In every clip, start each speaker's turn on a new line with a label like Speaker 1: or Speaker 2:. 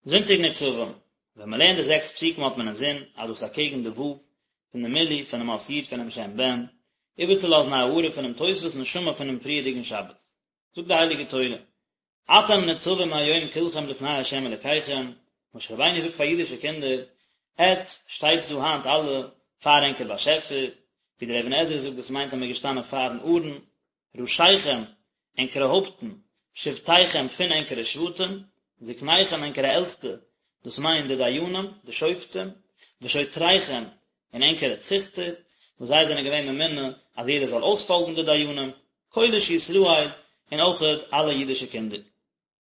Speaker 1: זונטאג נצבים, ווען מען לערנט די זעקס פסוקים האט מען אינזין אז דאס אקעגן די ו' פון די מילוי פונעם אות י' פונעם שם בן, איבערצולאזן א הארה פונעם תוספות נשמה פונעם פריערדיגן שבת. זאגט די הייליגע תורה, אתם נצבים היום כלכם לפני ה' אלקיכם, משה רבינו זאגט פאר אידישע קינדער, עטץ שטייטס דא היינט אלע פאר ענקער באשעפער, ווי דער אבן עזרא זאגט דאס מיינט אז מען איז געשטאנען פארן ארון, ראשיכם, ענקערע הויפטן, שבטיכם, פון ענקערע שבטים, זקניכם, ענקערע עלטסטע, דאס מיינט די דיינים, די שופטים, ושוטריכם, און ענקערע ציכטער, וואס זיי זענען געווען ממונה אז יעדער זאל אויספאלגן די דיינים, כל איש ישראל, און אויכעט אלע אידישע קינדער.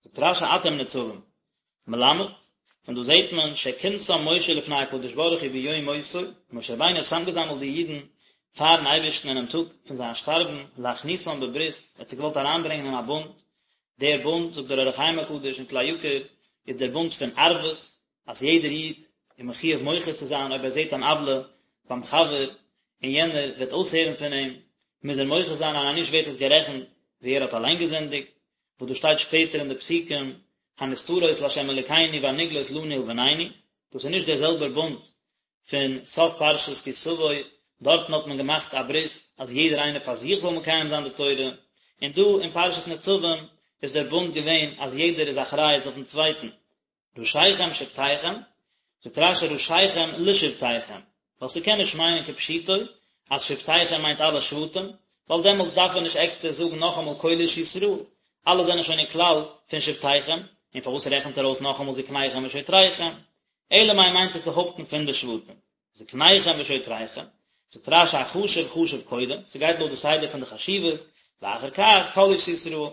Speaker 1: זאגט רש"י אתם נצבים, מלמד, פון דא זעט מען שכינסם משה לפני הקדוש ברוך הוא ביום מותו, משה רבינו האט צוזאמגעזאמלט די אידן פארן אייבערשטן אינעם טאג פון זיין שטארבן, להכניסם בברית, ער האט זיי געוואלט אריינברענגען אין א בונד, דער בונד, זאגט דער אור החיים הקדוש אין כלי יקר, איז דער בונד פון ערבות, אז יעדער איד איז מחויב מוחה צו זיין אויב ער זעט אן עוולה ביים חבר און יענער וועט אויסהערן פון אים, מוז ער מוחה זיין און אז נישט ווערט עס גערעכנט ווי ער האט אליין געזינדיגט, וואס דאס שטייט שפעטער אין די פסוקים, הנסתרות לה' אלוקינו והנגלות לנו ולבנינו, דאס איז נישט דער זעלבער בונד פון סוף פרשת כי תבוא, דארטן האט מען געמאכט א ברית אז יעדער איינער פאר זיך זאל מקיים זיין די תורה, און דא אין פרשת נצבים איז דער בונד געווען אז יעדער איז אחריות אויפן צווייטן. ראשיכם שבטיכם, זאגט רש"י ראשיכם לשבטיכם, ווייל ס'קען נישט מיינען כפשוטו אז שבטיכם מיינט אלע שבטים, ווייל דעמאלטס דארף ער נישט עקסטער זאגן נאכאמאל כל איש ישראל, אלע זענען שוין אין כלל פון שבטיכם, און פארוואס רעכנט ער אויס נאכאמאל זקניכם ושוטריכם? אלא מאי מיינט עס די הויפטן פון די שבטים, זקניכם ושוטריכם, זאגט רש"י החשוב חשוב קודם, ס'גייט לויט די סדר פון די חשיבות, ואחר כך כל איש ישראל.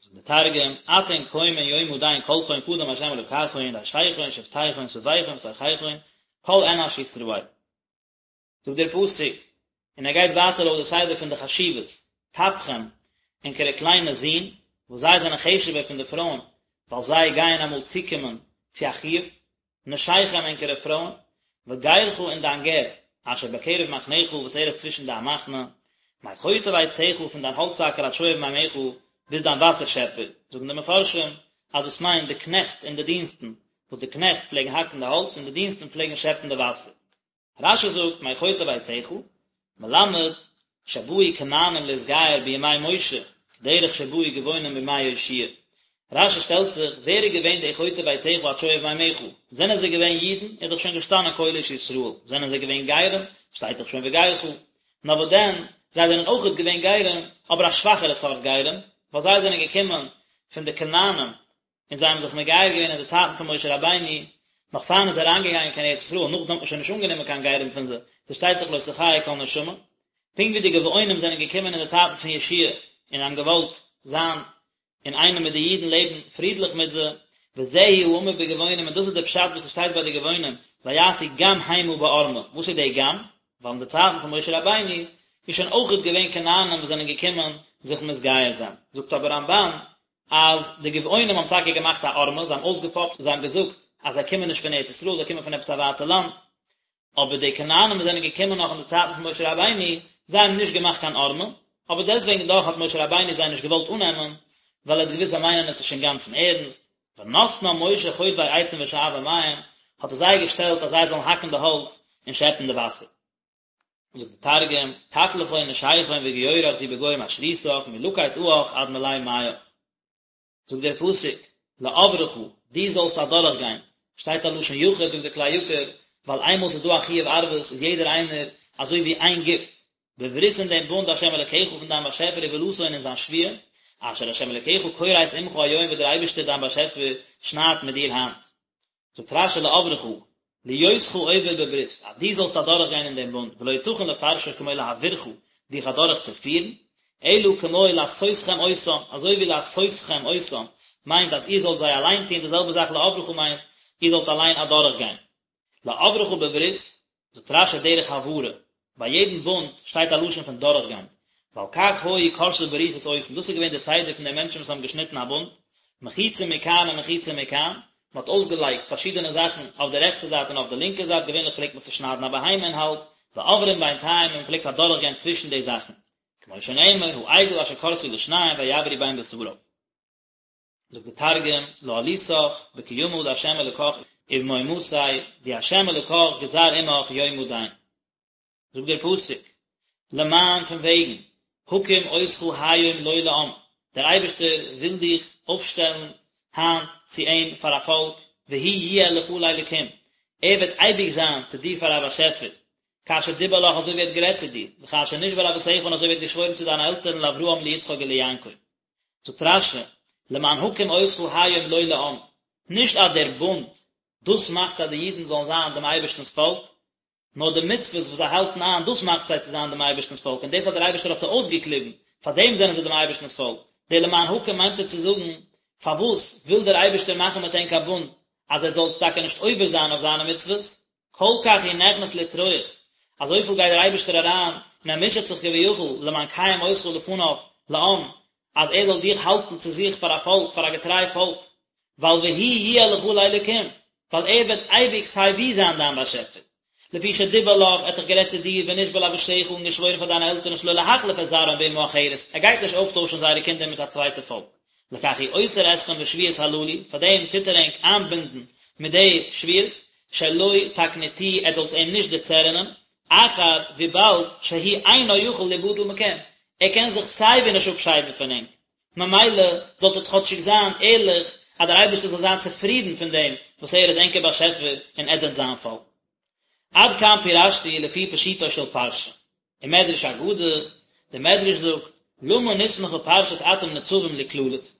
Speaker 1: זאגט דער תרגום, אתון קיימין יומא דין כלכון קדם ה' אלקכון רישיכון שבטיכון סביכון ותרחיכון כל אנש ישראל. זאגט דער פסוק, און ער גייט ווייטער לויט די סדר פון די חשיבות, טפכם, ענקערע קליינע זין, וואס זיי זענען חשוב'ער פון די פרויען, ווייל זיי גייען אמאל צוקומען צו א חיוב, נשיכם ענקערע פרויען, וגרך און דיין גר, אשר בקרב מחניך וואס ער איז צווישן דיין מחנה, מחוטב עציך פון דיין האלצהאקער עד שואב מימיך, ביז דיין וואסער שעפער, זאגן די מפרשים אז דאס מיינט די קנעכט און די דינסטן, וואס די קנעכט פלעגן האקן די האלץ און די דינסטן פלעגן שעפן די וואסער. רש"י זאגט מחוטב עציך, מלמד שבאו כנענים להתגייר בימי משה, כדרך שבאו גבעונים בימי יהושע. רש"י שטעלט זיך, ווער איז געווען די חוטב עציך עד שואב מימיך? זענען זיי געווען אידן? איז דאך שוין געשטאנען כל איש ישראל. זענען זיי געווען גרים? שטייט דאך שוין וגרך. נאר וואס דען, זיי זענען אויכעט געווען גרים, אבער א שוואכערע סארט גרים, ווייל זיי זענען געקומען פון די כנענים, און זיי האבן זיך מגייר געווען אין די צייטן פון משה רבינו, נאך פאר מ'איז אריינגעגאנגען קיין ארץ ישראל, נאכדעם האט מען שוין נישט אנגענומען קיין גרים פון זיי, ס'שטייט דאך לא תחיה כל נשמה, פונקט ווי די גבעונים זענען געקומען אין די צייטן פון יהושע און האבן געוואלט זיין אינאיינעם מיט די אידן לעבן פרידליך מיט זיי, וזהו האמור בגבעונים און דאס איז דער פשט וואס עס שטייט ביי די גבעונים, ויעשו גם המה בערמה, וואס איז דער גם? ווייל אין די צייטן פון משה רבינו איז שוין אויכעט געווען כנענים וואס זענען געקומען זיך מתגייר זיין, זאגט אבער רמב"ן אז די גבעונים האבן טאקע געמאכט א ערמה, זיי האבן אויסגעפאפט, זיי האבן געזאגט אז זיי קומען נישט פון ארץ ישראל, זיי קומען פון עפעס א ווייטע לאנד, אבער די כנענים וואס זענען געקומען נאך אין די צייטן פון משה רבינו, זיי האבן נישט געמאכט קיין ערמה, אבער דעסטוועגן דאך האט משה רבינו זיי נישט געוואלט אננעמען, ווייל ער האט געוואוסט זיי מיינען עס נישט אינגאנצן ערנסט, ונתנם משה חוטבי עצים ושואבי מים, האט ער זיי געשטעלט אז זיי זאלן האקן די האלץ און שעפן די וואסער. זאגט די תרגום, טף לכון נשיכון וגיורך די בגו משריתך מלקיט עיך עד מלי מיך. זאגט דער פסוק, לעברך, דו זאלסט אדורך גיין, שטייט א לשון יחיד זאגט דער כלי יקר, ווייל איינמאל ס'איז דא א חיוב ערבות איז יעדער איינער אזוי ווי איין גוף, בברית אין דעם בונד השם אלקיך פון דיין באשעפער ובאלתו און אין זיין שבועה, אשר השם אלקיך כורת עמך היום וואס דער אייבערשטער דיין באשעפער שניידט מיט דיר היינט. זאגט רש"י לעברך, להיותך עובר בברית, אז דו זאלסט אדורך גיין אין דעם בונד, ולא יתכן לפרשו כמו להעבירך, דיך אדורך צו פירן, אלא כמו לעשותכם אותם, אזוי ווי לעשותכם אותם מיינט אז איר זאלט זיי אליין טון, די זעלבע זאך לעברך מיינט, איר זאלט אליין אדורך גיין. לעברך בברית, זאגט רש"י דרך העברה, ביי יעדן בונד שטייט א לשון פון דורכגיין, ועל כך היו כורתי בריתות עושין, דאס איז געווען די סדר פון די מענטשן וואס האבן געשניטן א בונד, מחיצה מכאן ומחיצה מכאן, מען האט אויסגעלייגט פארשידענע זאכן אויף די רעכטע זייט און אויף די לינקע זייט, געווענליך פלעגט מען צושניידן א בהמה אין האלב, ועוברים בינתיים און מען פלעגט אדורכגיין צווישן די זאכן, כמו שנאמר, העגל אשר כרתו לשניים ויעברו בין בשריו. זאגט די תרגום, לאעלותך בקימא דה' אלקך ובמהמתיה די ה' אלקך גזר עמך יומא דין. זאגט דער פסוק, למען פון וועגן, הקים אותך היום לו לעם, דער אייבערשטער וויל דיך אויפשטעלן היינט צו אים פאר א פאלק, והוא יהיה לך לאלקים, ער וועט אייביג זיין צו דיר פאר א באשעפער, כאשר דיבר לך אזוי ווי ער האט גערעדט צו דיר, וכאשר נשבע לאבותיך און אזוי ווי ער האט געשוואוירן צו דיינע עלטערן לאברהם ליצחק וליעקב. זאגט רש"י, למען הקים אותך היום לו לעם, נישט אז דער בונד, דאס מאכט אז די אידן זאלן זיין דעם אייבערשטנ'ס פאלק, נאר די מצוות וואס זיי האלטן איין, דאס מאכט זיי צו זיין דעם אייבערשטנ'ס פאלק, און דאס אז דער אייבערשטער האט זיי אויסגעקליבן, פאר דעם זענען זיי דעם אייבערשטנ'ס פאלק. דער למען הקים מיינט ער צו זאגן, פארוואס וויל דער אייבערשטער מאכן מיט ענק א בונד, אז עטס זאלטס טאקע נישט עובר זיין אויף זיינע מצוות? כל כך הוא נכנס לטרוח, אזויפיל גייט דער אייבערשטער אריין און ער מוטשעט זיך כביכול למען קיים אותך לפניו לעם, אז ער זאל דיך האלטן צו זיך פאר א פאלק, פאר א געטריי פאלק, ווייל והוא יהיה לך לאלקים, ווייל ער וועט אייביג סיי ווי זיין דיין באשעפער. לפי שדיבר לך, ער האט דאך גערעדט צו דיר, ונשבע לאבותיך און געשוואוירן פאר דיינע עלטערן שלא להחליף את זרעם באומה אחרת, ער גייט נישט אויפטוישן זייערע קינדער מיט א צווייטע פאלק. לכך הוא אוסר אתכם בשבועות הללו, פאר דעם טוט ער ענק איינבינדן מיט די שבועות, שלא תקניטוהו, עטס זאלטס אים נישט דערצערענען, אחר, וויבאלד, שהוא אינו יכול ליבדל מכם, ער קען זיך סיי ווי נישט אפשיידן פון ענק, ממילא זאלט עטס כאטשיג זיין ערליך, אז דער אייבערשטער זאל זיין צופרידן פון דעם וואס ער איז ענקער באשעפער און עטס זענט זיין פאלק. עד כאן פירשתי לפי פשוטו של פרשה. ומדרש אגדה, דער מדרש זאגט, למה נסמכה פרשת אתם נצבים לקללות?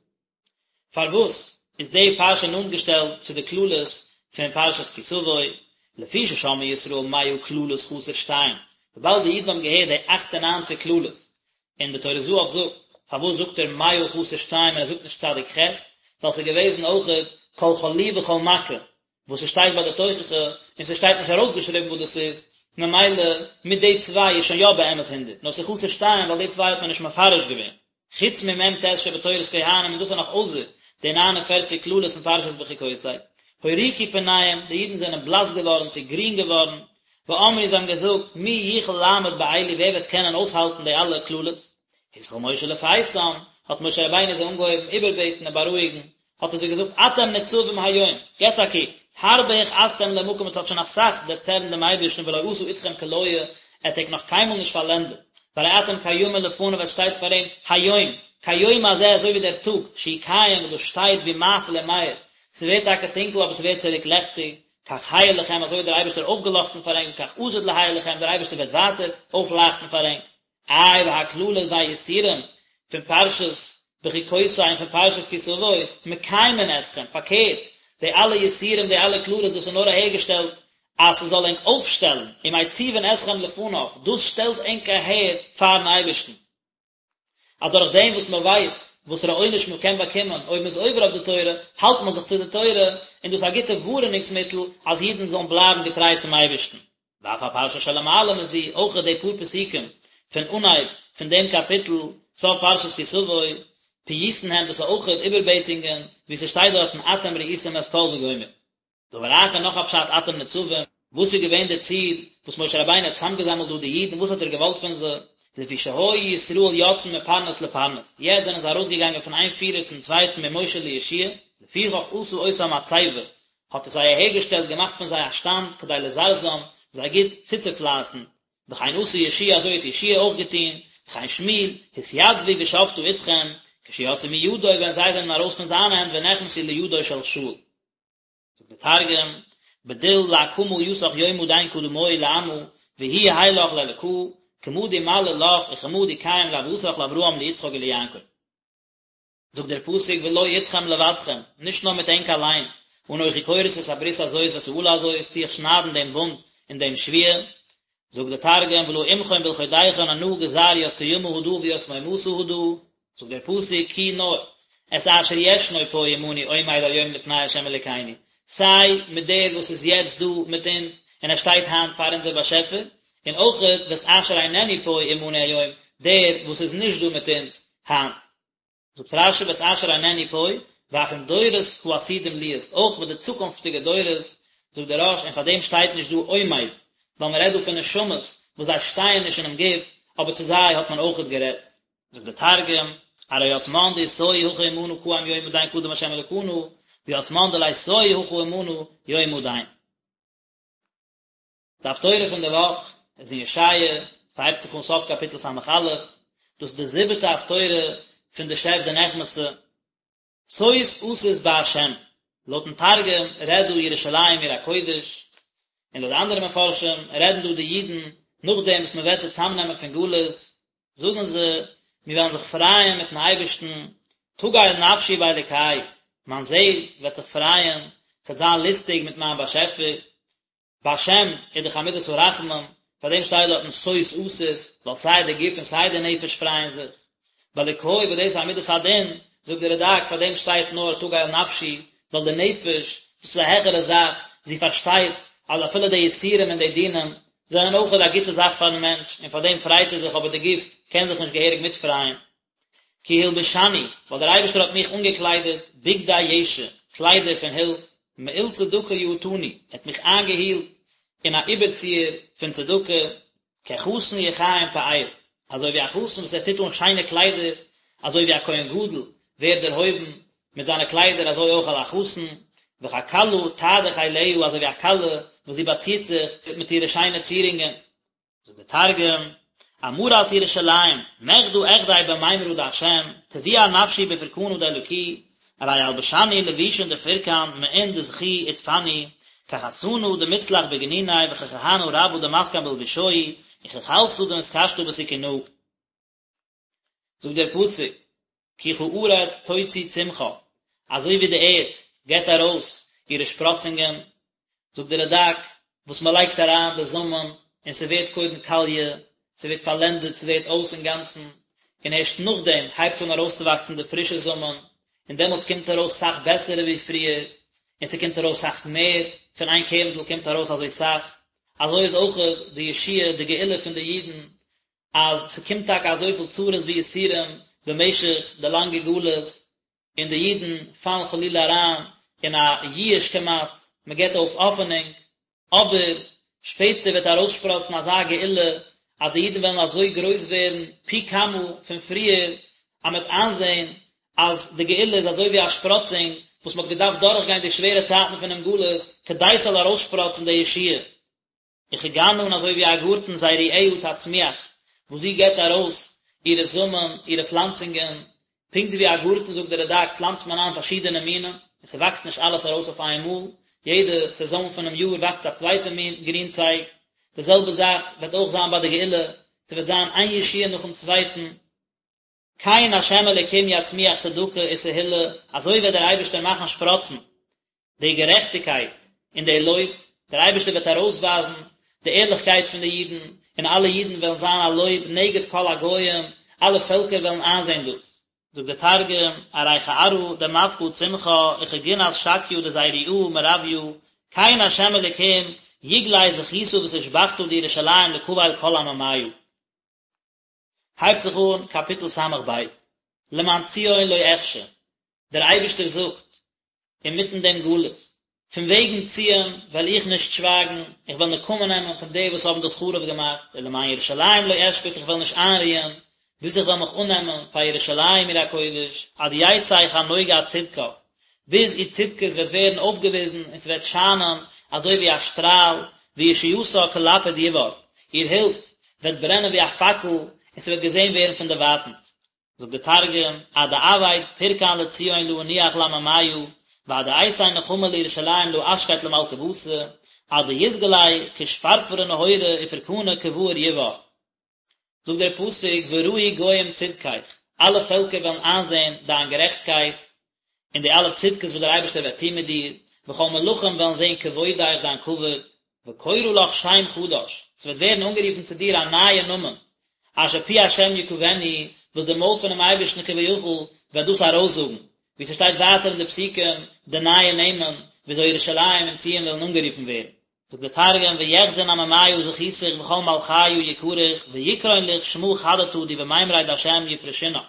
Speaker 1: פארוואס איז די פרשה נאנט געשטעלט צו די קללות פון פרשת כי תבוא, לפי ששמעו ישראל מאה קללות חסר שתיים, וויבאלד די אידן האבן געהערט די אכט און ניינציג קללות, און די טורי זהב זאגט, פארוואס זאגט ער מאה חסר שתיים און ער זאגט נישט צדיק ח', ווייל ס'איז געוועזן אויכעט כל חלי וכל מכה, וואס ס'שטייט ביי די תוכחה, און ס'שטייט נישט ארויסגעשריבן וואס דאס איז, ממילא מיט די צוויי איז שוין יא באמת הונדערט, נאר ס'איז חסר שתיים ווייל די צוויי האט מען נישט מפרש געווען. חוץ ממ"ט שבתורת כהנים און דאס איז נאך אויסער די 49 קללות פון פרשת בחוקותי. הוריקו פניהם, די אידן זענען בלאס געווארן צו גרין געווארן, ואמרו זיי האבן געזאגט, מי יוכל לעמוד באלו ווער וועט קענען אויסהאלטן די אלע קללות? התחיל משה לפייסם, האט משה רבינו זיי אנגעהויבן איבערבעטן און בארואיגן, האט ער זיי געזאגט אתם נצבים היום, געטס א קוק, הרבה הכעסתם למקום עטס האט שוין אסאך דערצערנט דעם אייבערשטן ולא עשה אתכם כליה, ער האט ענק נאך קיינמאל נישט פארלענדעט, והרי אתם קיימין לפניו עטס שטייטס פאר אים, היום, כיום הזה אזוי ווי דער טאג, שהוא קיים וואס דאס שטייט והוא מאפיל ומאיר, ס'ווערט טאקע טונקל אבער ס'ווערט צוריק לעכטיג, כך האיר לכם אזוי האט דער אייבערשטער אויפגעלאכטן פאר ענק וכך עתיד להאיר לכם דער אייבערשטער וועט ווייטער אויפלייכטן פאר ענק. איי והקללות והיסורים פון פרשת בחוקותי און פון פרשת כי תבוא מקיימין אתכם, פארקערט, די אלע יסורים די אלע קללות דאס איז נאר אהערגעשטעלט אז ס'זאל ענק אויפשטעלן, ומציבין אתכם לפניו, דאס שטעלט ענק אהער פארן אייבערשטן. אז דורך דעם וואס מען ווייסט וואסערע עונש מען קען באקומען אויב מען איז עובר אויף די תורה, האלט מען זיך צו די תורה, און דאס איז א גוטע ווארענונגס מיטל אז אידן זאלן בלייבן געטריי צום אייבערשטן. ואף הפרשה שלמעלה מזו, אויך די פאר פסוקים פון אנהייב פון דעם קאפיטל, סוף פרשת כי תבוא, פיוסין הם, דאס איז אויך איבערבעטונגען, ווי ס'שטייט דארטן אתם ראיתם את כל וגומר. דבר אחר נאך א פשט אתם נצבים, וואס איז געווען די ציל וואס משה רבינו האט צוזאמגעזאמלט דא די אידן, וואס האט ער געוואלט פון זיי, לפי שהיו ישראל יוצאין מפרנס לפרנס, יעצט זענען זיי ארויסגעגאנגען פון איין פירער צום צווייטן ממשה ליהושע, לפיכך עשה אותם מצבה, האט ער זיי אהערגעשטעלט געמאכט פון זיי א שטאנד כדי לזרזם, זיי גוט צוצופלייסן, וכן עשה יהושע אזוי האט יהושע אויך געטון, וכן שמואל, התייצבו ושפטה אתכם, כשיצאו מידו ווען זיי זענען ארויס פון זיינע הענט ונכנסו לידו של שאול. זאגט דער תרגום, בדיל לאקמא יתך יומא דין קדמוהי לעמא, והוא יהי לך לאלקא, כמא די מלי לך וכמא די קיים לאבהתך לאברהם ליצחק וליעקב. זאגט דער פסוק ולא אתכם לבדכם, נישט נאר מיט ענק אליין, אנכי כורת את הברית הזאת ואת האלה הזאת, טו איך שניידן דעם בונד און דעם שבועה, זאגט דער תרגום ולא עמכון בלחודכון אנא גזר ית קימא הדא וית מהימתא הדא, זאגט דער פסוק כי נאר את אשר ישנו פה עמנו עומד היום לפני ה' אלוקינו, סיי מיט דער וואס איז יעצט דא מיט אונז און ער שטייט היינט פאר אונזער באשעפער, און אויכעט ואת אשר איננו פה עמנו היום, דער וואס איז נישט דא מיט אונז היינט. זאגט רש"י ואת אשר איננו פה, ואף עם דורות העתידים להיות, אויך מיט די צוקונפטיגע דורות, זאגט דער רא"ש, און פאר דעם שטייט נישט דא עומד, ווייל מען רעדט דא פון נשמות וואס זיי שטייען נישט אינעם גוף, אבער צו זיי האט מען אויכעט גערעדט. זאגט דער תרגום, ארי ית מן דאתתו הכא עמנא קאים יומא דין קדם ה' אלקנא, וית מן דליתו הכא עמנא יומא דין. די הפטורה פון די וואך איז אין ישעיה, ס'הייבט זיך אן סוף קאפיטל ס"א, דאס איז די זיבעטע הפטורה פון די שב דנחמתא, שוש אשיש בה', לויטן תרגום רעדט דא ירושלים עיר הקודש, און לויט די אנדערע מפרשים רעדן דא די אידן נאכדעם וואס מען וועט זיי צאמנעמען פון גלות, זאגן זיי, מיר וועלן זיך פרייען מיטן אייבערשטן, תגל נפשי באלוקי, מיין זעל וועט זיך פרייען, ס'וועט זיין לוסטיג מיט מיין באשעפער, בהשם איז דאך א מידת הרחמים, פאר דעם שטייט דארטן שוש אשיש, ווייל סיי די גוף און סיי די נפש פרייען זיך. באלוקי וואס דאס איז א מידת הדין, זאגט דער רד"ק, פאר דעם שטייט נאר תגל נפשי, ווייל די נפש, דאס איז א העכערע זאך, זי פארשטייט אז אפילו די יסורים און די דינים זענען אויכעט א גוטע זאך פארן מענטש, און פאר דעם פרייט זי זיך, אבער די גוף קען זיך נישט געהעריג מיטפרייען. כי הלבישני, ווייל דער אייבערשטער האט מיך אנגעקליידעט, בגדי ישע, קליידער פון הילף, מעיל צדקה יעטני, ער האט מיך איינגעהילט אין א איבערציער פון צדקה, כחתן יכהן פאר, אזוי ווי א חתן וואס ער טוט אן שיינע קליידער, אזוי ווי א כהן גדול ווערט דערהויבן מיט זיינע קליידער אזוי אויך א חתן, וככלה תעדה חיליה, אזוי ווי א כלה וואס זי באצירט זיך מיט אירע שיינע צירונגען. זאגט דער תרגום, אמרת ירושלים, מחדא אחדי במימרא דהשם, טביע נפשי בפורקנא דאלקי, ארי אלבשני לבושין דפורקן, מעין דזכי עטפני, כחתנא דמצלח בגניניה וככהנא רבא דמתקן בלבושוהי, וככלתא דמתקשטא בסכונהא. זאגט דער פסוק, כי כארץ תוציא צמחה, אזוי ווי די ערד געבט ארויס אירע שפראצונגען, זאגט דער רד"ק, וואס מען לייגט אריין די זאמען און ס'ווערט קודם קאליע, ס'ווערט פארלענדעט, ס'ווערט אויס אינגאנצן, און ערשט נאכדעם הייבט אן ארויסצואוואקסן די פרישע זאמען, און דעמאלטס קומט ארויס סאך בעסערע ווי פריער, און ס'קומט ארויס סאך מער, פון איין קערנדל קומט ארויס אזוי סאך, אזוי איז אויך די ישועה, די גאולה פון די אידן, אז ס'קומט טאקע אזויפיל צרות ויסורים במשך די לאנגע גלות, און די אידן פאלן חלילה אריין אין א ייאוש כמעט, מען גיבט אויף האפענונג, אבער שפעטער וועט ארויסשפראצן אזא גאולה אז די אידן וועלן אזוי גרויס ווערן פי כמה פון פריער, אז מען וועט איינזען אז די גאולה איז אזוי ווי א שפראצונג וואס מען האט געדארפט דורכגיין די שווערע צייטן פונעם גלות כדי ס'זאל ארויסשפראצן די ישועה. וכגנה און אזוי ווי א גארטן זרועיה תצמיח, וואס זי געבט ארויס אירע זאמען, אירע פלאנצונגען, פונקט ווי א גארטן זאגט דער רד"ק פלאנצט מען איין פארשידענע מינים, און ס'וואקסט נישט אלעס ארויס אויף איין מאל, יעדע סעזאן פונעם יאר וואקסט א צווייטע מין גרינצייג, די זעלבע זאך וועט אויך זיין ביי די גאולה, ס'וועט זיין איין ישועה נאכן צווייטן. כן ה' אלוקים יצמיח צדקה ותהילה, אזוי וועט דער אייבערשטער מאכן שפראצן די גערעכטיגקייט און די לויב, דער אייבערשטער וועט ארויסווייזן די ערליכקייט פון די אידן, און אלע אידן וועלן זיין א לויב נגד כל הגוים, אלע פעלקער וועלן איינזען דאס. זאגט דער תרגום, ארי כארעא דמפקא צמחה וכגנת שקיא דזיריעא מרויא, כן ה' אלוקים יגלי זכותא ותושבחתא דירושלים לקבל כל עממיא. הייבט זיך אן קאפיטל ס"ב, למען ציון לא אחשה, דער אייבערשטער זאגט אינמיטן דעם גלות, פון וועגן ציון וועל איך נישט שווייגן, איך וועל נקמה נעמען פון די וואס האבן דאס חרוב געמאכט, ולמען ירושלים לא אשקוט, איך וועל נישט איינרוען, ביז איך וועל מיך אננעמען פאר ירושלים עיר הקודש, עד יצא כנוגה צדקה, ביז איר צדקות וועט ווערן אויפגעוויזן און ס'וועט שיינען אזוי ווי א שטראל, וישועתה כלפיד יבער, איר הילף וועט ברענען ווי א פאקל און ס'וועט געזען ווערן פון דערווייטנס. זאגט דער תרגום, עד דאעביד פורקן לציון לא אנוח לעממיא, ועד דאייתי נחמא לירושלים לא אשקיט למלכא בתא, עד דיתגלי כשפרפרא נהורא ופורקנא כבאר יבער. זאגט דער פסוק וראו גוים צדקך, אלע פעלקער וועלן איינזען דיין גערעכטקייט, און די אלע צדקות וואס דער אייבערשטער וועט טון מיט דיר, וכל מלכים וועלן זען כבודך דיין כבוד, וקורא לך שם חדש, ס'וועט ווערן אנגערופן צו דיר א נייע נאמען, אשר פי השם יקבנו, וואס די מויל פונעם אייבערשטן כביכול וועט דאס ארויסזאגן, ווי ס'שטייט ווייטער אין די פסוקים די נייע נעמען וויאזוי ירושלים און ציון וועלן אנגערופן ווערן. זאגט דער תרגום ויחזון עממיא זכותיך וכל מלכיא יקריך ויקרון לך שמא חדתא די במימריה דהשם יפרשינן.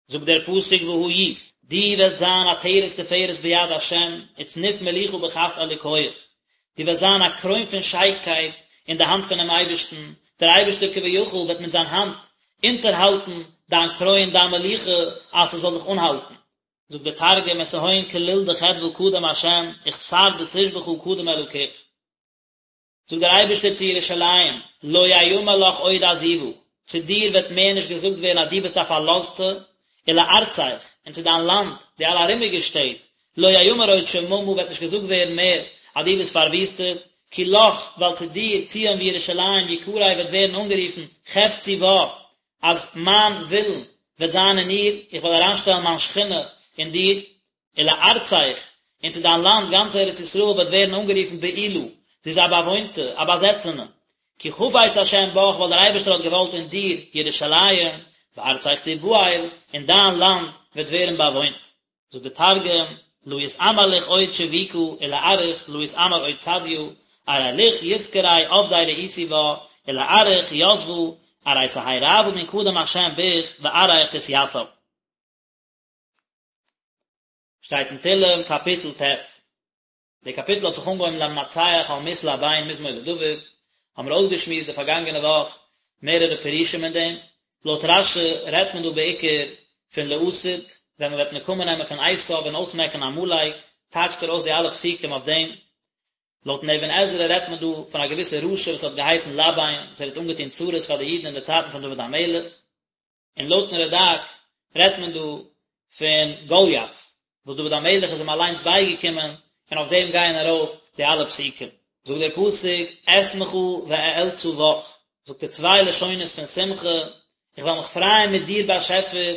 Speaker 1: זאגט דער פסוק והיית, דו וועסט זיין עטרת תפארת ביד השם וצנוף מלוכה בכף אלוקיך, דו וועסט זיין א קרוין פון שיינקייט אין די האנט פונעם אייבערשטן, דער אייבערשטער כביכול וועט מיט זיין האנט אונטערהאלטן דיין קרוין, דיין מלוכה, אז ס'זאל זיך אנהאלטן. זאגט דער תרגום, ותהוין כליל דחדוה קדם השם, וכתר דתושבחא קדם אלקיך. זאגט דער אייבערשטער צו ירושלים, לא יאמר לך עוד עזובה, צו דיר וועט מער נישט געזאגט ווערן אז דו ביסט א פארלאזטע, ולארצך, און צו דיין לאנד, די אלע ארומיגע שטעט, לא יאמר עוד שממה וועט נישט געזאגט ווערן מער אז דו ביסט פארוויסטעט, כי לך, ווייל צו דיר, ציון וירושלים, יקרא וועט ווערן אנגערופן, חפצי בה, אז מיין ווילן וועט זיין אין איר, איך וועל אריינשטעלן מיין שכינה אין דיר, ולארצך, און צו דיין לאנד, גאנץ ארץ ישראל וועט ווערן אנגערופן בעולה, זי איז א באוואוינטע, א באזעצענע. כי חפץ השם בך, ווייל דער אייבערשטער האט געוואלט אין דיר, ירושלים, וארצך תבעל, און דיין לאנד וועט ווערן באוואוינט. זאגט דער תרגום, לא יתאמר ליך עוד שביקא, ולארעך לא יתאמר עוד צדיא, ארי ליך יתקרי עבדי רעיתי בה, ולארעך יתבה, ארי תהי רעוא מן קדם השם ביך, וארעך תתיסב. שטייט אין תהלים קאפיטל ט'. די קאפיטל האט זיך אנגעהויבן למנצח על מסל הבן מזמור לדוד, האבן מיר אויסגעשמועסט די פארגאנגענע וואך מערערע פירושים אין דעם, לויט רש"י רעדט מען דא בעיקר פון לעתיד, ווען מען וועט נקמה נעמען פון עשיו און אויסמעקן עמלק, טייטשט ער אויס די אלע פסוקים אויף דעם. לויטן אבן עזרא רעדט מען דא פון א געוויסע רשע וואס האט געהייסן לבן, וואס ער האט אנגעטון צרות פאר די אידן אין די צייטן פון דוד המלך. און לויטן רד"ק רעדט מען דא פון גוליית, וואס דוד המלך איז אים אליינס בייגעקומען, און אויף דעם גייען ארויף די אלע פסוקים. זאגט דער פסוק, אשמחה ואאלצה בך, זאגט ער צוויי לשונות פון שמחה, איך וועל מיך פרייען מיט דיר באשעפער,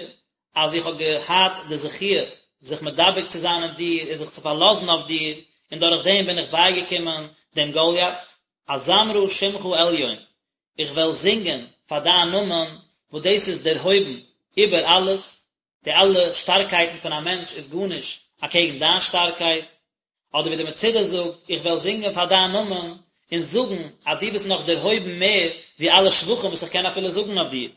Speaker 1: אז איך האב געהאט די זכיה זיך מדבק צו זיין אין דיר און זיך צו פארלאזן אויף דיר, און דורך דעם בין איך בייגעקומען דעם גוליית, אזמרה שמך עליון, איך וועל זינגען פאר דיין נאמען, וואס דאס איז דערהויבן איבער אלעס, די אלע שטארקייטן פון א מענטש איז גארנישט אקעגן דיין שטארקייט, אדער ווי די מצודה זאגט, איך וועל זינגען פאר דיין נאמען, און זאגן אז דו ביסט נאך דערהויבן מער ווי אלע שבחים וואס איך קען אפילו זאגן אויף דיר.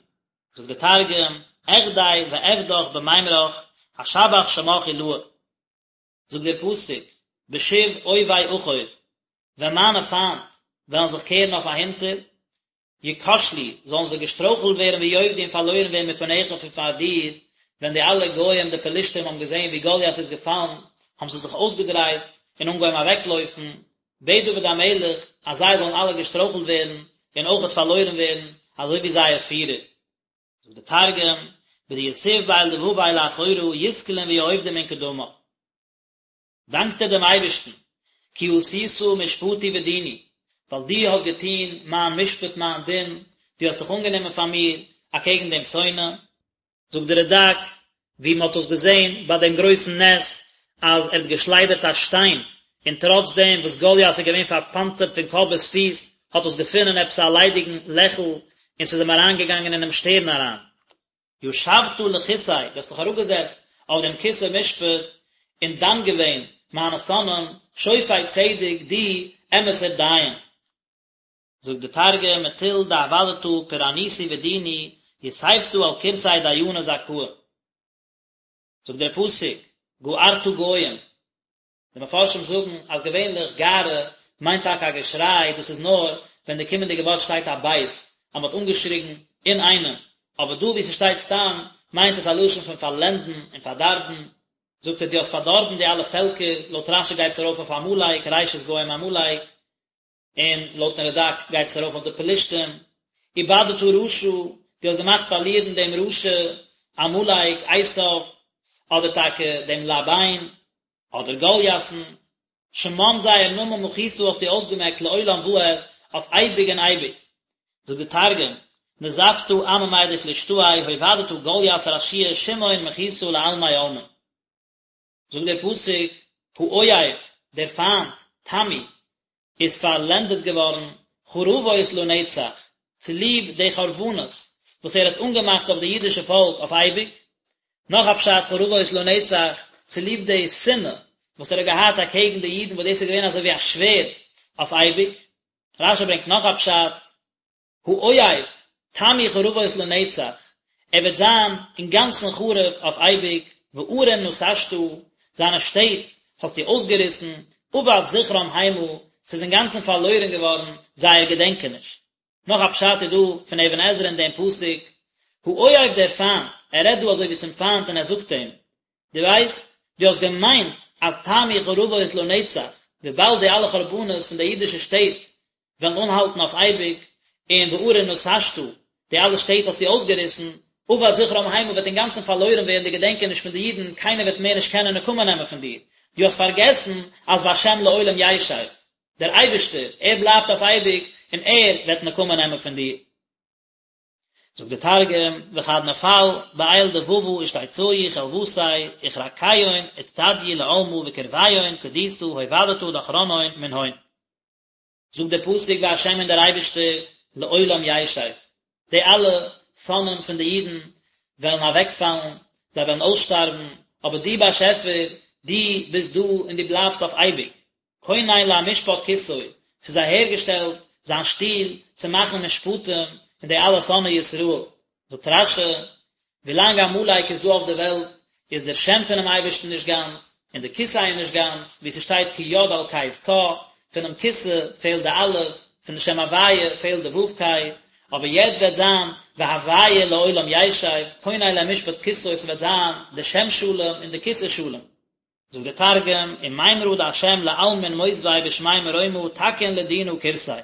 Speaker 1: זאגט דער תרגום, אחדי ואפדח במימרך, אשבח שמך עילאה. זאגט דער פסוק, בשוב אויבי אחור, ווען מיינע פיינט וועלן זיך קערן אויף אהינטער, יכשלו, זאלן זיי געשטרויכלט ווערן ויאבדו און פארלוירן ווערן מפניך פון פאר דיר, ווען די אלע גוים די פלישתים האבן געזען ווי גוליית איז געפאלן, האבן זיי זיך אויסגעדרייט און אנגעהויבן אוועקלויפן, בעט דוד המלך אז זיי זאלן אלע געשטרויכלט ווערן און אויכעט פארלוירן ווערן, אזוי ווי זייער פירער. זאגט דער תרגום, בדיתיב בעל דבבי לאחורא יתקלון ויאבדון מן קדמך. דאנקט ער דעם אייבערשטן, כי עשית משפטי ודיני, ווייל דו האסט געטון מיין משפט מיין דין, דו האסט דיך אנגענומען פאר מיר אקעגן דעם שונא. זאגט דער רד"ק, ווי מען האט עס געזען ביי דעם גרויסן נס, אז ער האט געשליידערט א שטיין, און טראץ דעם וואס גוליית איז געווען פארפאנצערט פון קאפ ביז פיס, האט עס געפונען עפעס א ליידיגן לעכל, און ס'איז אים אריינגעגאנגען אינעם שטערן אריין. ישבת לכסא, דו האסט דיך אראפגעזעצט אויף דעם כסא משפט, און דן געווען מיינע שונאים, שופט צדק, דו אמת'ער דיין. זאגט די תרגום, מטול דעבדתא פורענותי ודיני, יתיבתא על כורסי דיינא זכאה. זאגט דער פסוק, גערת גוים, די מפרשים זאגן אז געווענליך גערה מיינט טאקע א געשריי, דאס איז נאר ווען די קומענדיגע ווארט שטייט א בית, אז מען האט אנגעשריגן אינאיינעם, אבער דא וואו ס'שטייט סתם מיינט עס א לשון פון פארלענדן און פארדארבן, זאגט ער דו האסט פארדארבן די אלע פעלקער, לויט רש"י גייט עס ארויף אויף עמלק, ראשית גוים עמלק. און לויטן רד"ק גייט עס ארויף אויף די פלישתים, איבדת רשע, דו האסט געמאכט פארלירן דעם רשע, עמלק, עשיו, אדער טאקע דעם לבן, אדער גולית'ן, שמם זייער נאמען מחית האסטו אויסגעמעקט לעולם ועד, אויף אייביג און אייביג. זאגט די תרגום, נזפתא עממי דפלישתאי הובדתא גלית רשיעא שמהון מחית לעלמי עלמין. זאגט דער פסוק, האויב, דער פיינט, תמו, איז פארלענדעט געווארן, חרבות לנצח, צוליב די חרבנות וואס ער האט אנגעמאכט אויף די אידישע פאלק אויף אייביג. נאך א פשט, חרבות לנצח, צוליב די שנאה וואס ער האט געהאט אקעגן די אידן וואס דאס איז געווען אזוי ווי א שווערד אויף אייביג. רש"י ברענגט נאך א פשט, האויב, תמו חרבות לנצח, ער וועט זיין אינגאנצן חרוב אויף אייביג, וערים נתשת, זיינע שטעט האסטו אויסגעריסן, אבד זכרם המה, ס'איז אינגאנצן פארלוירן געווארן זייער געדענקעניש. נאך א פשט איז דא פון אבן עזרא אין דעם פסוק. האויב דער פיינט, ער רעדט דא אזוי ווי צום פיינט און ער זאגט אים, דו ווייסט, דו האסט געמיינט אז תמו חרבות לנצח, וויבאלד די אלע חרבנות פון די אידישע שטעט וועלן אנהאלטן אויף אייביג, און וערים נתשת, די אלע שטעט האסטו אויסגעריסן, אבד זכרם המה וועט אינגאנצן פארלוירן ווערן די געדענקעניש פון די אידן, קיינער וועט מער נישט קענען נקמה נעמען פון דיר, דו האסט פארגעסן אז והשם לעולם ישב, דער אייבערשטער, ער בלייבט אויף אייביג, און ער וועט נקמה נעמען פון דיר. זאגט דער תרגום, וכד נפל בעיל דבבא אשתיצאו חלוותיה וכרקיון אצטדיו לעלמא וקרביון צדיתא הובדתא דכרנהון מנהון. זאגט דער פסוק והשם און דער אייבערשטער לעולם ישב, די אלע שונאים פון די אידן וועלן אוועקפאלן, זיי וועלן אויסשטארבן, אבער דו באשעפער, דו ביסט דא און דו בלייבסט אויף אייביג. כונן למשפט כסאו, ס'איז אהערגעשטעלט זיין שטול צו מאכן משפטים אין די אלע שונאי ישראל. זאגט רש"י, ווילאנג עמלק איז דא אויף די וועלט, איז דער שם פונעם אייבערשטן נישט גאנץ, און די כסא איז נישט גאנץ, ווי ס'שטייט כי יד על כס קה, פונעם כסא פעלט די אלף, פון די שם הוויה פעלט די ו' קי, אבער יעצט וועט זיין והוויה לעולם ישב, כונן למשפט כסאו, ס'וועט זיין די שם שלם און די כסא שלם. זאגט דער תרגום, ומימרא דהשם לעלמין מותבי בשמי מרומא תקין לדינא כורסיה.